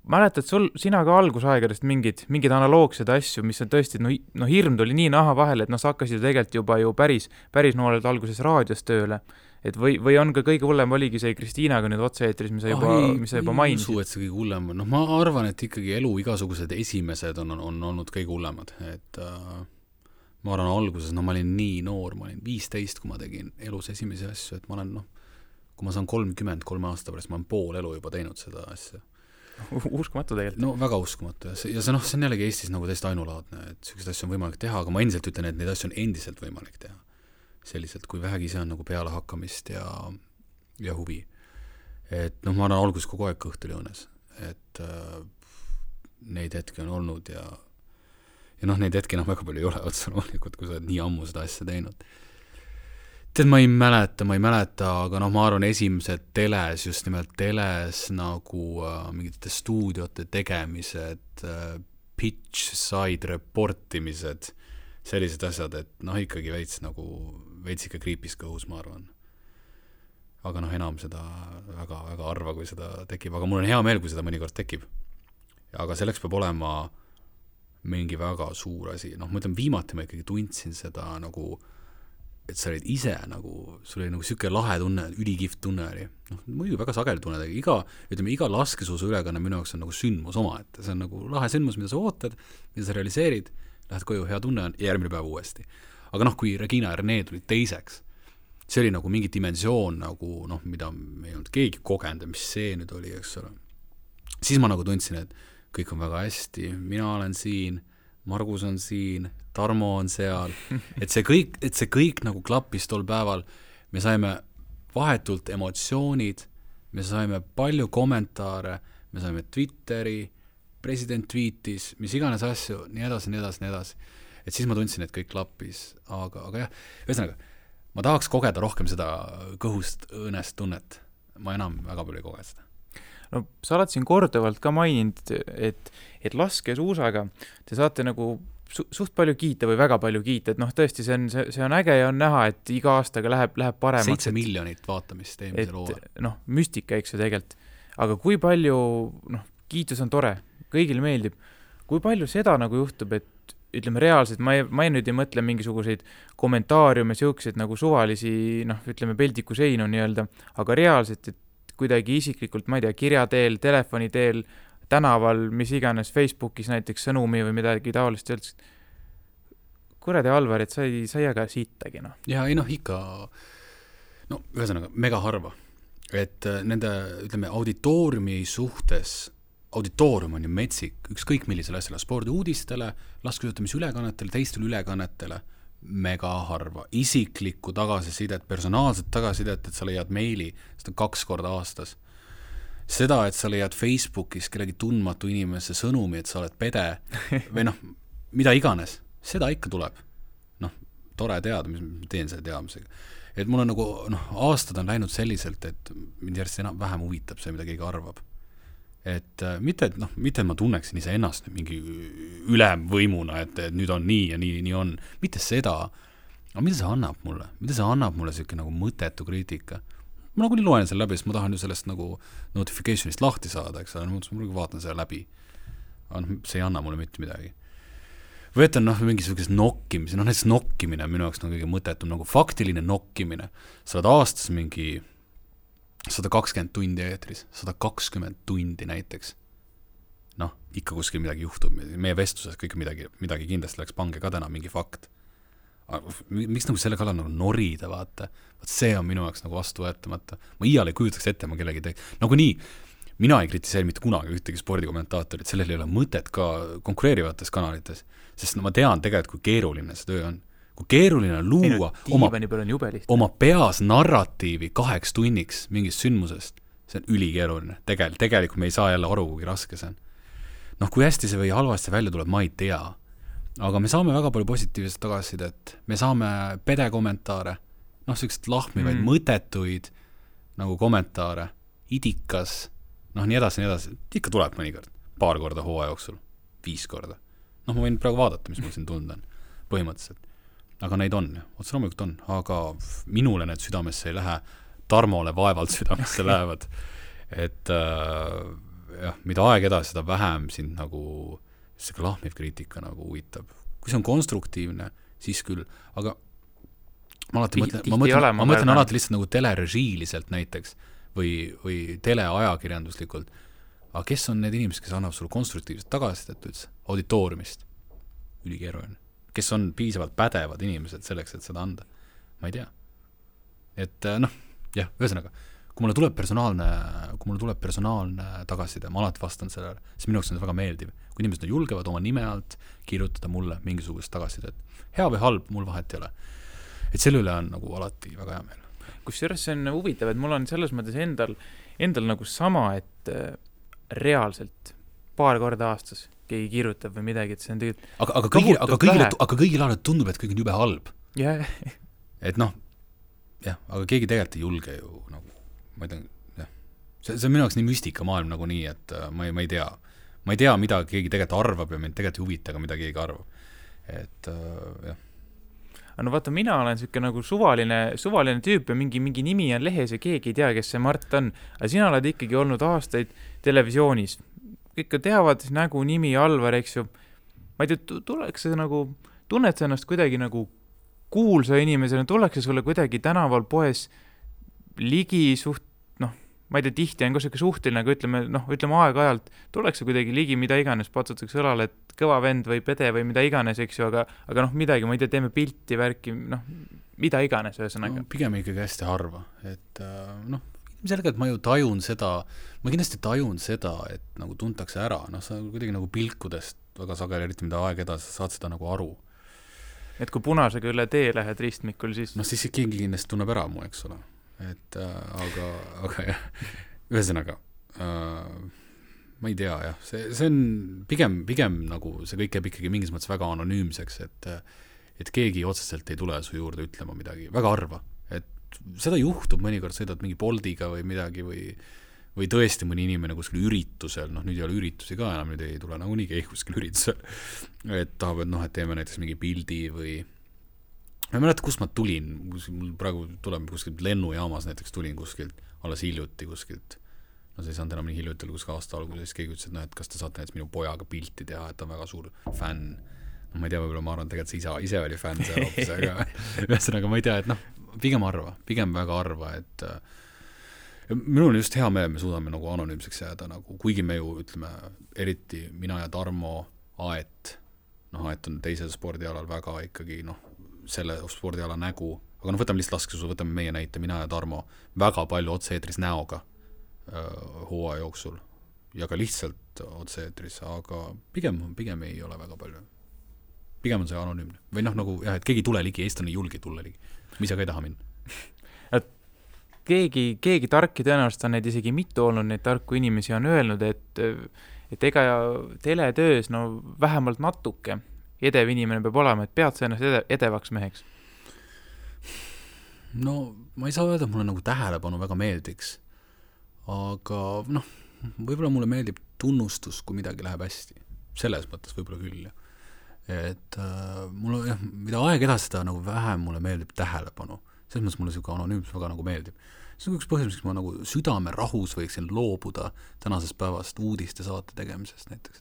Mäletad sina ka algusaegadest mingid analoogsed asju, mis on tõesti, no hirm tuli nii naha vahele, et sa hakkasid tegelikult juba ju päris nooled alguses raadios tööle. Et või on ka kõige hullem oligi see Kristiinaga nüüd otse-eetris, mis sa juba mainisid? Ei, et see kõige hullem on. Ma arvan, et ikkagi elu igasugused esimesed on olnud kõige hullemad. Et ma arvan alguses, ma olin nii noor, ma olin 15, kui ma tegin elus esimesi asju, et ma olen, kui ma saan 33 aasta pärast, ma olen pool elu juba teinud seda asja. Uskumatu tegelikult. No väga uskumatu. Ja see on jällegi Eestis nagu täiesti ainulaadne, et sellised asju on võimalik teha, aga ma endiselt ütlen, et neid asju on endiselt võimalik teha. Selliselt, kui vähegi see on nagu peale hakkamist ja huvi. Et ma olen alguses kogu aeg kõht oli õõnes, et neid hetki on olnud ja neid hetki väga palju ei ole otsa loomulikult, kui sa oled nii ammu seda asja teinud. Tead, ma ei mäleta, aga ma arvan esimesed teles, just nimelt teles nagu mingite stuudiote tegemised, pitch side reportimised, sellised asjad, et ikkagi veits ikka kriipis kõhus, ma arvan. Aga enam seda väga, väga arva, kui seda tekib, aga mul on hea meel, kui seda mõnikord tekib. Aga selleks peab olema mingi väga suur asi. Ma ütlen, viimati ma ikkagi tundsin seda et sa olid ise sul oli siuke lahe tunne, ülikihvt tunne oli. Muidu väga sageli tunne, iga laskesuusu ülekanne minu jaoks on sündmus oma, et see on lahe sündmus, mida sa ootad, mida sa realiseerid, lähed koju, hea tunne on, ja järgmine päev uuesti. Aga kui Regina ja Rene tulid teiseks, see oli mingi dimensioon, mida me ei olnud keegi kogenud, mis see nüüd oli, eks ole. Siis ma tundsin, et kõik on väga hästi, mina olen siin, Margus on siin, Tarmo on seal, et see kõik klappis tol päeval, me saime vahetult emotsioonid, me saime palju kommentaare, me saime Twitteri, president tweetis, mis iganes asju, nii edasi. Et siis ma tundsin, et kõik klappis, aga jah, ühesõnaga, ma tahaks kogeda rohkem seda kõhust õõnest tunnet. Ma enam väga palju ei koge seda. No sa oled siin korduvalt ka maininud, et laskesuusaga te saate suht palju kiita või väga palju kiita, et tõesti see on äge ja on näha, et iga aastaga läheb paremaks. 7 miljonit vaatamist eelmisel hooajal. Müstika, eks ju tegelikult. Aga kui palju, kiitus on tore, kõigile meeldib. Kui palju seda juhtub, et ütleme reaalselt, ma ei nüüd ei mõtle mingisuguseid kommentaariume, siukseid suvalisi, ütleme peldiku seinu nii-öelda, aga reaalselt, et kuidagi isiklikult, ma ei tea, kirja teel, telefoni teel, tänaval, mis iganes, Facebookis näiteks sõnumi või midagi taolist öeldes. Kuradi Alvar, et sa ei jaga siitagi, Ja ikka, ühesõnaga, mega harva. Et nende, ütleme, auditooriumi suhtes, auditoorium on ju metsik, ükskõik millisele asjale, spordiuudistele, laskesuusatamisülekannetele, teistele ülekannetele, mega harva. Isiklikku tagasisidet, personaalset tagasisidet, et sa leiad meili, seda 2 korda aastas. Seda, et sa leiad Facebookis kellegi tundmatu inimese sõnumi, et sa oled pede või mida iganes, seda ikka tuleb. Tore teada, mis ma teen selle teadmisega. Et mul on aastad on läinud selliselt, et mind järjest vähem huvitab see, mida keegi arvab. Et mitte ma tunneksin ise ennast mingi ülemvõimuna, et nüüd on nii ja nii on. Mitte seda, aga mida see annab mulle? Mida see annab mulle selline mõttetu kriitika? Ma nii loen selle läbi, sest ma tahan ju sellest notificationist lahti saada, eks ole, ma vaatan selle läbi. Aga see ei anna mulle mitte midagi. Või et on mingisugused nokkimise, näiteks nokkimine on minu jaoks kõige mõttetum, faktiline nokkimine. Sa oled aastas mingi 120 tundi eetris, 120 tundi näiteks. Ikka kuskil midagi juhtub. Meie vestluses kõik midagi kindlasti läks pange ka täna mingi fakt. Miks selle kallal norida, vaata? See on minu jaoks vastu võetamata. Ma iial ei kujutaks ette, ma kellegi nii, mina ei kritiseeri mitte kunagi ühtegi spordikommentaatorit, sellel ei ole mõtet ka konkureerivates kanalites, sest ma tean tegelikult, kui keeruline see töö on. Kui keeruline on luua oma peas narratiivi 2 tunniks mingist sündmusest, see on ülikeeruline. Tegelikult me ei saa jälle aru, kui raske see on. Kui hästi see või halvasti välja tuleb, ma ei tea. aga me saame väga palju positiivset tagasisidet, me saame pedekommentaare, noh, sellised lahmivaid, mõttetuid nagu kommentaare, idikas, noh, nii edasi, ikka tuleb mõnikord, paar korda hooaja jooksul, 5 korda. Noh, ma võin praegu vaadata, mis mul siin tunda on, põhimõtteliselt. Aga neid on, otse loomulikult on, aga minule need südamesse ei lähe, Tarmole vaevalt südamesse lähevad. Et jah, mida aeg edasi, seda vähem sind nagu see lahmiv kriitika nagu huvitab. Kui see on konstruktiivne, siis küll, aga ma mõtlen alati lihtsalt nagu telerežiiliselt näiteks või teleajakirjanduslikult. Aga kes on need inimesed, kes annavad sulle konstruktiivset tagasisidet üldse? Auditooriumist. Ülikeeruline. Kes on piisavalt pädevad inimesed selleks, et seda anda? Ma ei tea. Et noh, jah, ühesõnaga, kui mulle tuleb personaalne tagasiside, ma alati vastan sellele, siis minu jaoks on see väga meeldiv. Kui inimesed julgevad oma nime alt kirjutada mulle mingisugust tagasisidet. Hea või halb, mul vahet ei ole. Et selle üle on nagu alati väga hea meel. Kusjuures see on huvitav, et mul on selles mõttes endal nagu sama, et reaalselt paar korda aastas keegi kirjutab või midagi, et see on tegelikult aga kõigil alati tundub, et kõik on jube halb. Yeah. Et noh, jah, aga keegi tegelikult ei julge ju nagu, ma ei tea, jah. See on minu jaoks nii müstika maailm nagu nii, et ma ei tea. Ma ei tea, mida keegi tegelikult arvab ja mind tegelikult ei huvita, aga mida keegi arvab. Et jah. No vaata, mina olen siuke nagu suvaline tüüp ja mingi nimi on lehes ja keegi ei tea, kes see Mart on. Aga sina oled ikkagi olnud aastaid televisioonis. Kõik teavad nägu, nimi, Alvar, eks ju. Ma ei tea, tuleks see nagu, tunned sa ennast kuidagi nagu kuulsa inimesena, tuleks sulle kuidagi tänaval poes ligi ma ei tea, tihti on ka siuke suhtel, nagu ütleme aeg-ajalt, tuleks kuidagi ligi mida iganes, patsutakse õlale, et kõva vend või pede või mida iganes, eks ju, aga midagi, ma ei tea, teeme pilti, värki, mida iganes ühesõnaga. No, pigem ikkagi hästi harva, et selgelt ma ju tajun seda, ma kindlasti tajun seda, et nagu tuntakse ära, sa kuidagi nagu pilkudest väga sageli, eriti mida aeg edasi, saad seda nagu aru. Et kui punasega üle tee lähed ristmikul, siis... siis keegi kindlasti tunneb ära mu, eks ole. Et aga jah, ühesõnaga, ma ei tea, jah, see on pigem nagu see kõik jääb ikkagi mingis mõttes väga anonüümseks, et keegi otseselt ei tule su juurde ütlema midagi, väga harva, et seda juhtub mõnikord, sõidad mingi Boldiga või midagi või tõesti mõni inimene kuskil üritusel, nüüd ei ole üritusi ka enam, nüüd ei tule nagu nii keegi kuskil üritusel, et tahavad, et teeme näiteks mingi pildi või ma ei mäleta, kus ma tulin, mul praegu tuleb kuskilt lennujaamas näiteks tulin kuskilt, alles hiljuti kuskilt, see ei saanud enam nii hiljuti, kuskil aasta algul, siis keegi ütles, et kas te saate näiteks minu pojaga pilti teha, et ta on väga suur fänn. Ma ei tea, võib-olla ma arvan, tegelikult see ise oli fänn seal hoopis, aga ühesõnaga ma ei tea, et pigem väga harva, et minul on just hea meel, me suudame nagu anonüümseks jääda, nagu, kuigi me ju ütleme, eriti mina ja Tarmo Aet, Aet on teisel spordialal väga ikkagi, selle spordiala nägu, aga võtame lihtsalt laskesuusa, võtame meie näite, mina ja Tarmo, väga palju otse-eetris näoga hooaja jooksul ja ka lihtsalt otse-eetris, aga pigem ei ole väga palju. Pigem on see anonüümne. Või nagu, jah, et keegi tule ligi, eestlane ei julge tulla ligi. Mis aga ei taha minna. Keegi tarki tõenäoliselt on neid isegi mitu olnud, neid tarku inimesi on öelnud, et ega teletöös vähemalt natuke edev inimene peab olema, et pead sa ennast edevaks meheks? No, ma ei saa öelda, et mulle nagu tähelepanu väga meeldiks. Aga, võib-olla mulle meeldib tunnustus, kui midagi läheb hästi. Selles mõttes võib-olla küll. Et mulle, mida aeg edasi seda nagu vähem mulle meeldib tähelepanu. Selles mõttes mulle selline anonüümsus väga nagu meeldib. See on üks põhjus, miks ma nagu südame rahus võiksin loobuda tänasest päevast uudiste saate tegemisest näiteks,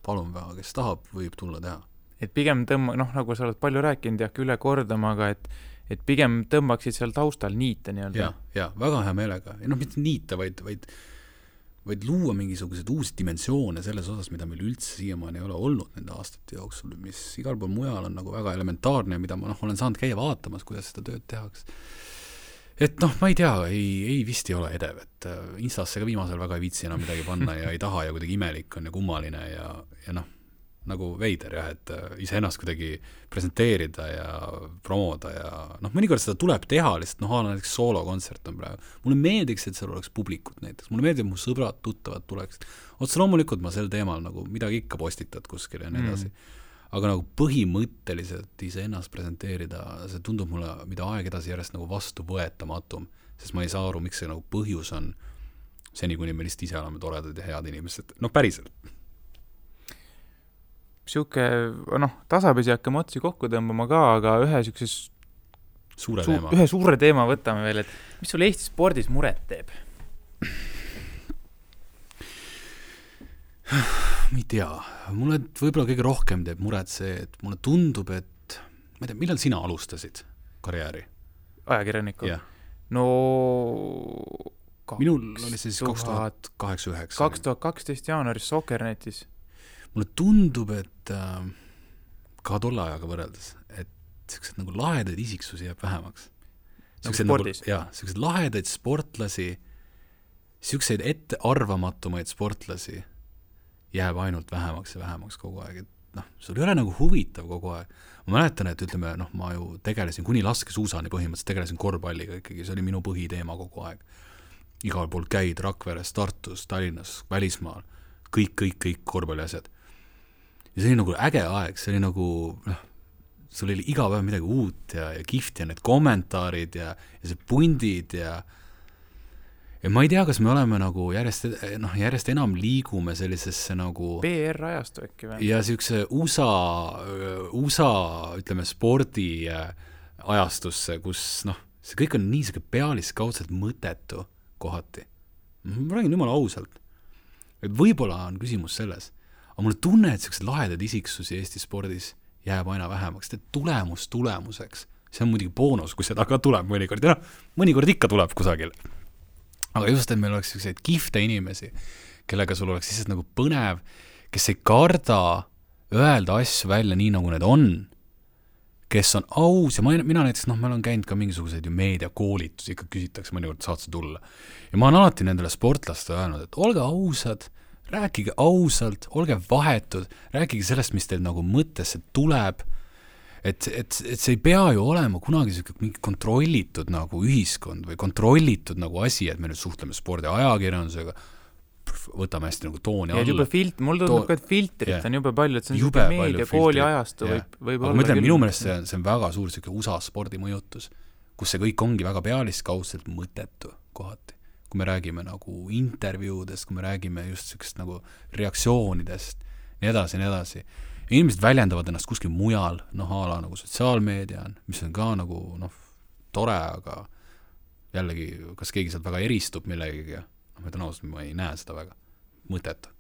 palun väga, kes tahab, võib tulla teha. Et pigem nagu sa oled palju rääkinud ja üle kordama, aga et pigem tõmbaksid seal taustal niite nii-öelda. Ja, väga hea meelega. Ja mitte niite, vaid luua mingisugused uusi dimensioone selles osas, mida meil üldse siiamaani ei ole olnud nende aastate jooksul, mis igal pool mujal on nagu väga elementaarne ja mida ma olen saanud käia vaatamas, kuidas seda tööd tehaks. Et ma ei tea, ei vist ei ole edev, et Instasse ka viimasel väga ei viitsi enam midagi panna ja ei taha ja kuidagi imelik on ja kummaline ja nagu veider jah, et iseennast kuidagi presenteerida ja promoda ja mõnikord seda tuleb teha lihtsalt, näiteks soolokontsert on praegu. Mulle meeldiks, et seal oleks publikut näiteks, mulle meeldib, mu sõbrad, tuttavad tuleks. Otse loomulikult ma sel teemal nagu midagi ikka postitad kuskil ja nii edasi. aga nagu põhimõtteliselt iseennast presenteerida, see tundub mulle, mida aeg edasi järjest nagu vastuvõetamatum, sest ma ei saa aru, miks see nagu põhjus on seni, kuni me lihtsalt ise oleme toredad ja head inimesed, noh päriselt. Siuke, tasapisi hakkame otsi kokku tõmbama ka, aga ühe suure teema võtame veel, et mis sul Eesti spordis muret teeb? Ma ei tea, mulle võib-olla kõige rohkem teeb muret see, et mulle tundub, et ma ei tea, millal sina alustasid karjääri? Ajakirjaniku? Yeah. No minul oli siis 2008-2009. 2012 jaanuaris Soccernetis. Mulle tundub, et ka tolle ajaga võrreldes, et sellised nagu lahedaid isiksusi jääb vähemaks. Nagu spordis? Sellised lahedaid sportlasi, selliseid ettearvamatumaid sportlasi jääb ainult vähemaks ja vähemaks kogu aeg. Et sul ei ole nagu huvitav kogu aeg. Ma mäletan, et ütleme, ma ju tegelesin kuni laskesuusani põhimõtteliselt, tegelesin korvpalliga ikkagi, see oli minu põhiteema kogu aeg. Igal pool käid Rakveres, Tartus, Tallinnas, välismaal, kõik korvpalliasjad. Ja see oli nagu äge aeg, see oli nagu, sul oli iga päev midagi uut ja kihvt ja need kommentaarid ja see pundid ja ma ei tea, kas me oleme nagu järjest enam liigume sellisesse nagu PR-ajastu äkki või? Ja siukse USA ütleme spordi ajastusse, kus see kõik on nii siuke pealiskaudselt mõtetu kohati. Ma räägin jumala ausalt. Et võib-olla on küsimus selles, aga mulle tunne, et sellised lahedad isiksusi Eesti spordis jääb aina vähemaks, et tulemuseks. See on muidugi boonus, kui seda ka tuleb mõnikord. Ja mõnikord ikka tuleb kusagil. Aga just, et meil oleks selliseid kihvte inimesi, kellega sul oleks lihtsalt nagu põnev, kes ei karda öelda asju välja nii, nagu need on, kes on aus ja mina näiteks, ma olen käinud ka mingisuguseid ju meediakoolitusi, ikka küsitakse mõnikord saatse tulla. Ja ma olen alati nendele sportlaste öelnud, et olge ausad, rääkige ausalt, olge vahetud, rääkige sellest, mis teil nagu mõttesse tuleb, et see ei pea ju olema kunagi mingi kontrollitud nagu ühiskond või kontrollitud nagu asi, et me nüüd suhtleme spordi ajakirjandusega, võtame hästi nagu tooni alla. Ja juba mul tundub ka, et filtrit on jube palju, et see on jube meedia, kooli ajastu võib olla. Ma ütlen, minu meelest see on väga suur USA spordi mõjutus, kus see kõik ongi väga pealiskaudselt mõttetu kohati. Kui me räägime nagu intervjuudest, kui me räägime just sellist nagu reaktsioonidest, nii edasi. Inimesed väljendavad ennast kuskil mujal, ala nagu sotsiaalmeedia on, mis on ka nagu tore, aga jällegi, kas keegi sealt väga eristub millegagi, ma ütlen ausalt, ma ei näe seda väga mõtet.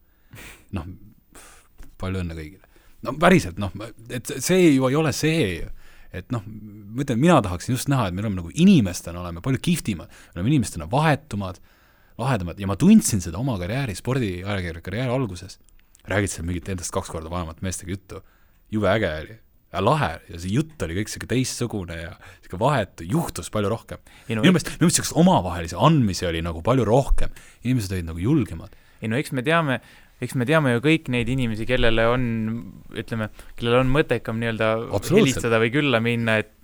Palju õnne kõigile. Päriselt, et see ju ei ole see, et mina tahaksin just näha, et me oleme nagu inimestena, oleme palju kihvtimad, me oleme inimestena vahetumad, lahedamad, ja ma tundsin seda oma karjääri, spordiajakirja karjääri alguses. Räägid seal mingit endast 2 korda vanemat meestega juttu. Jube äge oli. Ja lahe. Ja see jutt oli kõik selline teistsugune ja selline vahetu. Juhtus palju rohkem. Minu meelest omavahelisi andmisi oli nagu palju rohkem. Inimesed olid nagu julgemad. Eks me teame ju kõik neid inimesi, kellel on mõttekam nii-öelda helistada või külla minna, et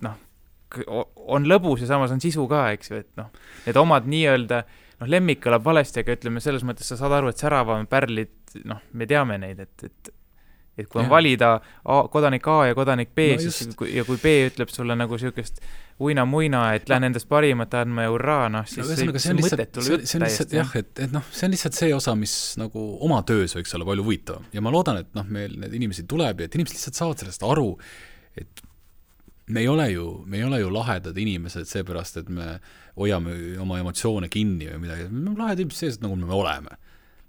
on lõbus ja samas on sisu ka, eks ju, et need omad nii-öelda lemmik kõlab valesti, aga ütleme selles mõttes sa saad aru, et säravam pärlid, me teame neid, et kui on valida kodanik A ja kodanik B, siis, ja kui B ütleb sulle nagu siukest uina-muina, et lähen endast parimat andma ja hurraa, siis see mõtet tuleb täiesti. Jah, et see on lihtsalt see osa, mis nagu oma töös võiks olla palju huvitav. Ja ma loodan, et meil need inimesed tuleb ja et inimesed lihtsalt saavad sellest aru, et me ei ole ju lahedad inimesed seepärast, et me hoiame oma emotsioone kinni või midagi. Me oleme lahedad inimesed sees, nagu me oleme.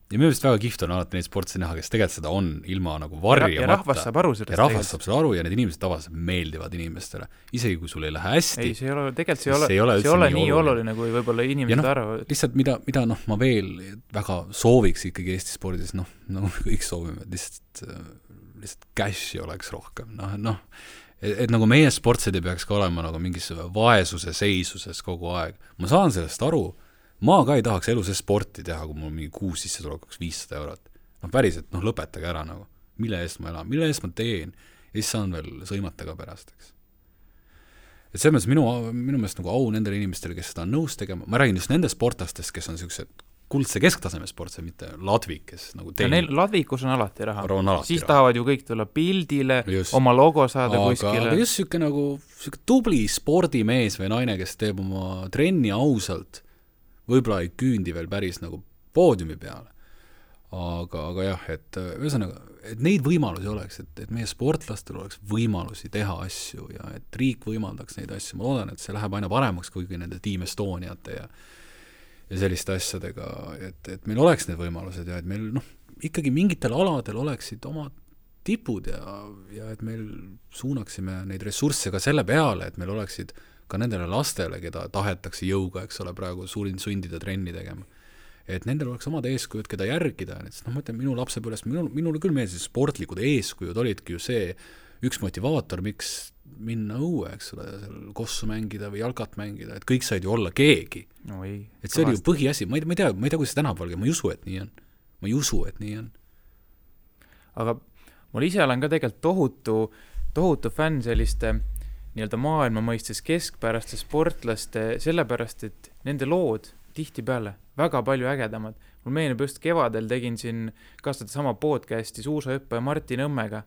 Ja minu meelest väga kihvt on alati neid sportse näha, kes tegelikult seda on ilma nagu varjamata. Ja rahvas saab aru sellest. Ja rahvas saab seda aru ja need inimesed tavaliselt meeldivad inimestele. Isegi kui sul ei lähe hästi. Ei, see ei ole nii oluline, kui võib-olla inimesed arvavad. Lihtsalt mida ma veel väga sooviks ikkagi Eesti spordis, nagu kõik soovime, lihtsalt cash'i oleks rohkem. Et nagu meie sportsed ei peaks ka olema nagu mingis vaesuse seisuses kogu aeg. Ma saan sellest aru. Ma ka ei tahaks elu see sporti teha, kui mul mingi kuus sisse tuleks 500 eurot. Päriselt, lõpetage ära nagu. Mille eest ma elan, mille eest ma teen. Ja siis saan veel sõimata ka pärast, eks. Et selles mõttes minu meelest nagu au nendele inimestele, kes seda on nõus tegema. Ma räägin just nende sportlastest, kes on sellised kuldse kesktaseme sport, see mitte Ladvik, kes nagu neil Ladvikus on alati raha. Siis raha. tahavad ju kõik tulla pildile, oma logo saada kuskile. Aga just siuke nagu siuke tubli spordimees või naine, kes teeb oma trenni ausalt, võib-olla ei küündi veel päris nagu poodiumi peale. Aga jah, et ühesõnaga, et neid võimalusi oleks, et meie sportlastel oleks võimalusi teha asju ja et riik võimaldaks neid asju. Ma loodan, et see läheb aina paremaks kuigi nende Team Estoniate ja selliste asjadega, et meil oleks need võimalused ja et meil ikkagi mingitel aladel oleksid oma tipud ja et meil suunaksime neid ressursse ka selle peale, et meil oleksid ka nendele lastele, keda tahetakse jõuga, eks ole, praegu sundida trenni tegema. Et nendel oleks omad eeskujud, keda järgida. Ma mõtlen, minu lapsepõlvest, minule küll meeldisid sportlikud eeskujud olidki ju see üks motivaator, miks minna õue, eks ole, seal kossu mängida või jalgat mängida, et kõik said ju olla keegi. No ei, et see oli ju põhiasi, ma ei tea, kuidas see tänapäeval, ma ei usu, et nii on. Aga mul ise olen ka tegelikult tohutu fänn selliste nii-öelda maailma mõistes keskpäraste sportlaste, sellepärast, et nende lood tihtipeale väga palju ägedamad. Mul meenub just kevadel tegin siin kastada sama podcasti suusahüppaja Martin Õmmega.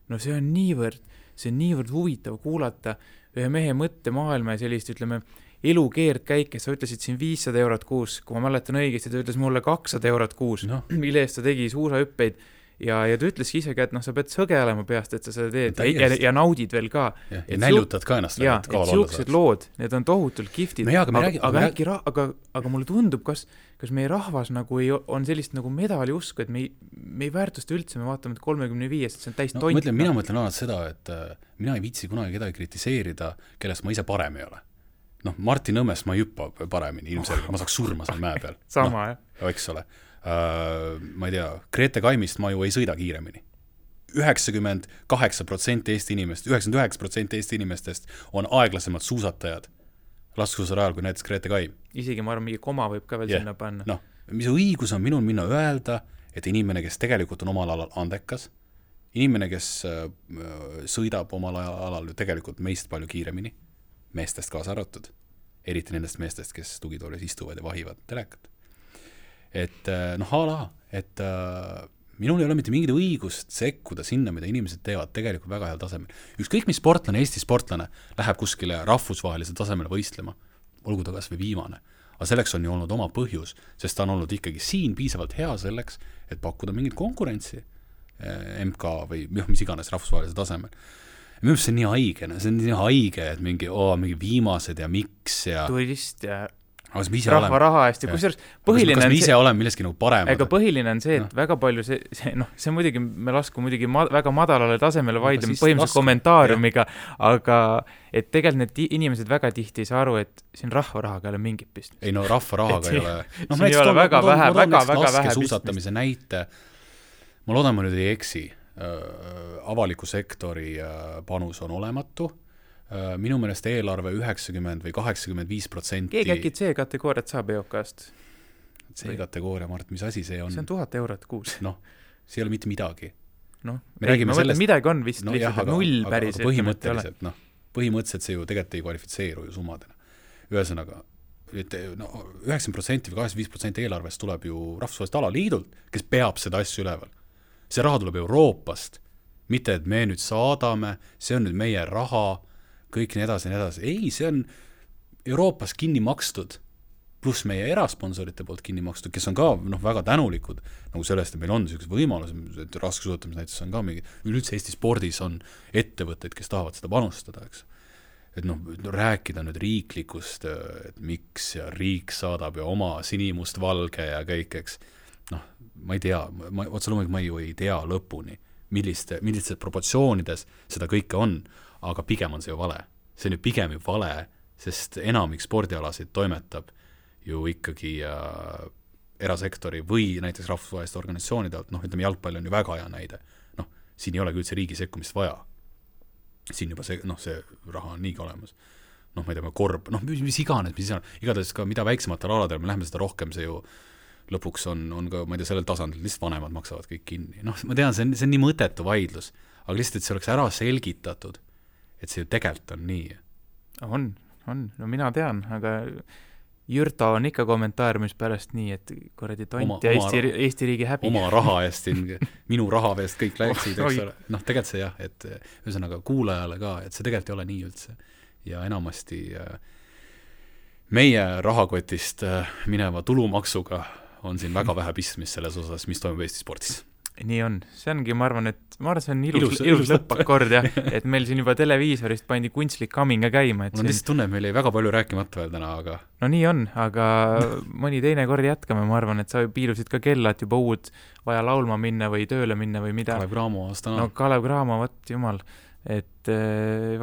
No see on niivõrd huvitav kuulata ühe mehe mõttemaailma ja sellist, ütleme, elukeerd käike. Sa ütlesid siin 500 eurot kuus, kui ma mäletan õigesti, ta ütles mulle 200 eurot kuus, mille eest ta tegi suusahüppeid. Ja ta ütleski isegi, et sa pead sõgelema peast, et sa seda teed ja naudid veel ka. Ja näljutad ka ennast. Ja, et siuksed lood, need on tohutult kiftid. Aga mulle tundub, kas meie rahvas nagu on sellist nagu medali usku, et me ei väärtusta üldse, me vaatame 35, et see on täis tont. Mina mõtlen alati seda, et mina ei viitsi kunagi kedagi kritiseerida, kellest ma ise parem ei ole. Martin Õmmest ma ei hüppa paremini, ilmselgelt, ma saaks surma seal mäe peal. Sama, jah. Eks ole. Ma ei tea, Grete Kaimist ma ju ei sõida kiiremini. 98% Eesti inimest, 99% Eesti inimestest on aeglasemad suusatajad laskesuusarajal kui näiteks Grete Kaim. Isegi ma arvan, mingi koma võib ka veel sinna panna. Mis õigus on minul minna öelda, et inimene, kes tegelikult on omal alal andekas, inimene, kes sõidab omal alal tegelikult meist palju kiiremini, meestest kaasa arvatud, eriti nendest meestest, kes tugitoolis istuvad ja vahivad telekat. Et minul ei ole mitte mingit õigust sekkuda sinna, mida inimesed teevad tegelikult väga heal tasemel. Ükskõik mis sportlane, Eesti sportlane läheb kuskile rahvusvahelisel tasemele võistlema, olgu ta kas või viimane. Aga selleks on ju olnud oma põhjus, sest ta on olnud ikkagi siin piisavalt hea selleks, et pakkuda mingit konkurentsi MK või mis iganes rahvusvahelisel tasemel. Minu arust see on nii haige, et mingi viimased ja miks ja turist ja rahva raha eest ja kusjuures põhiline kas me ise oleme milleski nagu paremad? Ega põhiline on see, et väga palju see muidugi, me lasku muidugi väga madalale tasemele vaidleme põhimõtteliselt kommentaariumiga, aga et tegelikult need inimesed väga tihti ei saa aru, et siin rahva rahaga ei ole mingit pistmist. Ei rahva rahaga ei ole. Siin ei ole väga vähe suusatamise näite. Ma loodan, ma nüüd ei eksi. Avaliku sektori panus on olematu. Minu meelest eelarve 90 või 85%. Keegi äkki C-kategooriat saab EOK-ast? C-kategooria, Mart, mis asi see on? See on 1000 eurot kuus. See ei ole mitte midagi. Ma mõtlen, midagi on vist lihtsalt null päris. Põhimõtteliselt see ju tegelikult ei kvalifitseeru ju summadena. Ühesõnaga, 90% või 85% eelarvest tuleb ju rahvusvahelist alaliidult, kes peab seda asju üleval. See raha tuleb Euroopast, mitte et me nüüd saadame, see on nüüd meie raha, kõik nii edasi. Ei, see on Euroopas kinni makstud, pluss meie erasponsorite poolt kinni makstud, kes on ka väga tänulikud nagu sellest, et meil on sellised võimalus, et raskesuusatamis näiteks on ka mingi, üldse Eesti spordis on ettevõtteid, kes tahavad seda panustada, eks. Et rääkida nüüd riiklikust, et miks ja riik saadab ja oma sinimust valge ja kõik, eks. Ma ei tea, otse loomulikult ma ju ei tea lõpuni, millistes proportsioonides seda kõike on, aga pigem on see ju vale. See on ju pigem ju vale, sest enamik spordialasid toimetab ju ikkagi erasektori või näiteks rahvusvaheliste organisatsioonide alt, ütleme jalgpall on ju väga hea näide. Siin ei ole üldse riigi sekkumist vaja. Siin juba see raha on niigi olemas. Ma ei tea, korb, mis iganes, igatahes ka mida väiksematel aladel, me läheme seda rohkem, see ju lõpuks on ka, ma ei tea, sellel tasandil lihtsalt vanemad maksavad kõik kinni. Ma tean, see on nii mõtetu vaidlus, aga lihtsalt, et see oleks ära selgitatud, et see ju tegelikult on nii. On. No mina tean, aga Jürto on ikka kommentaariumis pärast nii, et kuradi tont ja Eesti riigi häbi. Oma raha eest, minu raha eest kõik läksid, eks ole. Noh, tegelikult see jah, et ühesõnaga kuulajale ka, et see tegelikult ei ole nii üldse. Ja enamasti meie rahakotist mineva tulumaksuga on siin väga vähe pistmist selles osas, mis toimub Eesti spordis. Nii on, see ongi, ma arvan, see on ilus lõppakord jah, et meil siin juba televiisorist pandi kunstlik kaminga käima. Mul on lihtsalt tunne, et meil ei väga palju rääkimata veel täna, aga... No nii on, aga mõni teine kord jätkame, ma arvan, et sa piilusid ka kella, et juba uud vaja laulma minna või tööle minna või mida. Kalev Cramo aastana. No Kalev Cramo, võt jumal, et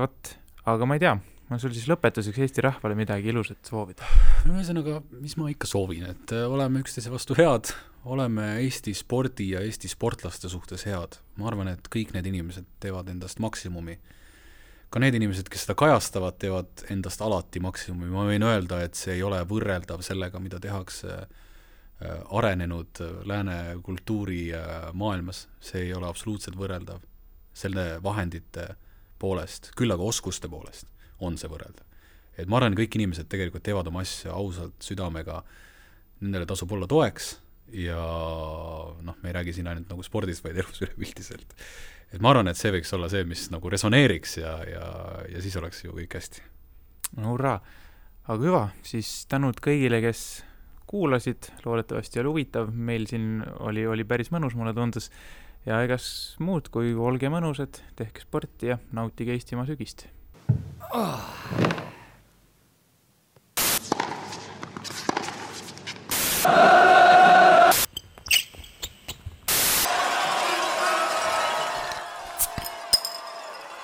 võt, aga ma ei tea, ma sul siis lõpetuseks Eesti rahvale midagi ilusat soovida. Ühesõnaga, mis ma ikka soovin, et oleme üksteise vastu head, oleme Eesti spordi ja Eesti sportlaste suhtes head. Ma arvan, et kõik need inimesed teevad endast maksimumi. Ka need inimesed, kes seda kajastavad, teevad endast alati maksimumi. Ma võin öelda, et see ei ole võrreldav sellega, mida tehakse arenenud lääne kultuuri maailmas. See ei ole absoluutselt võrreldav selle vahendite poolest, küll aga oskuste poolest on see võrreldav. Et ma arvan, kõik inimesed tegelikult teevad oma asja ausalt südamega, nendele tasub olla toeks ja noh, me ei räägi siin ainult nagu spordist, vaid elus üleüldiselt. Et ma arvan, et see võiks olla see, mis nagu resoneeriks ja siis oleks ju kõik hästi. No hurraa! Aga hüva, siis tänud kõigile, kes kuulasid, loodetavasti oli huvitav, meil siin oli päris mõnus, mulle tundus, ja egas muud kui olge mõnusad, tehke sporti ja nautige Eestimaa sügist.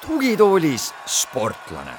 Tugitoolis sportlane.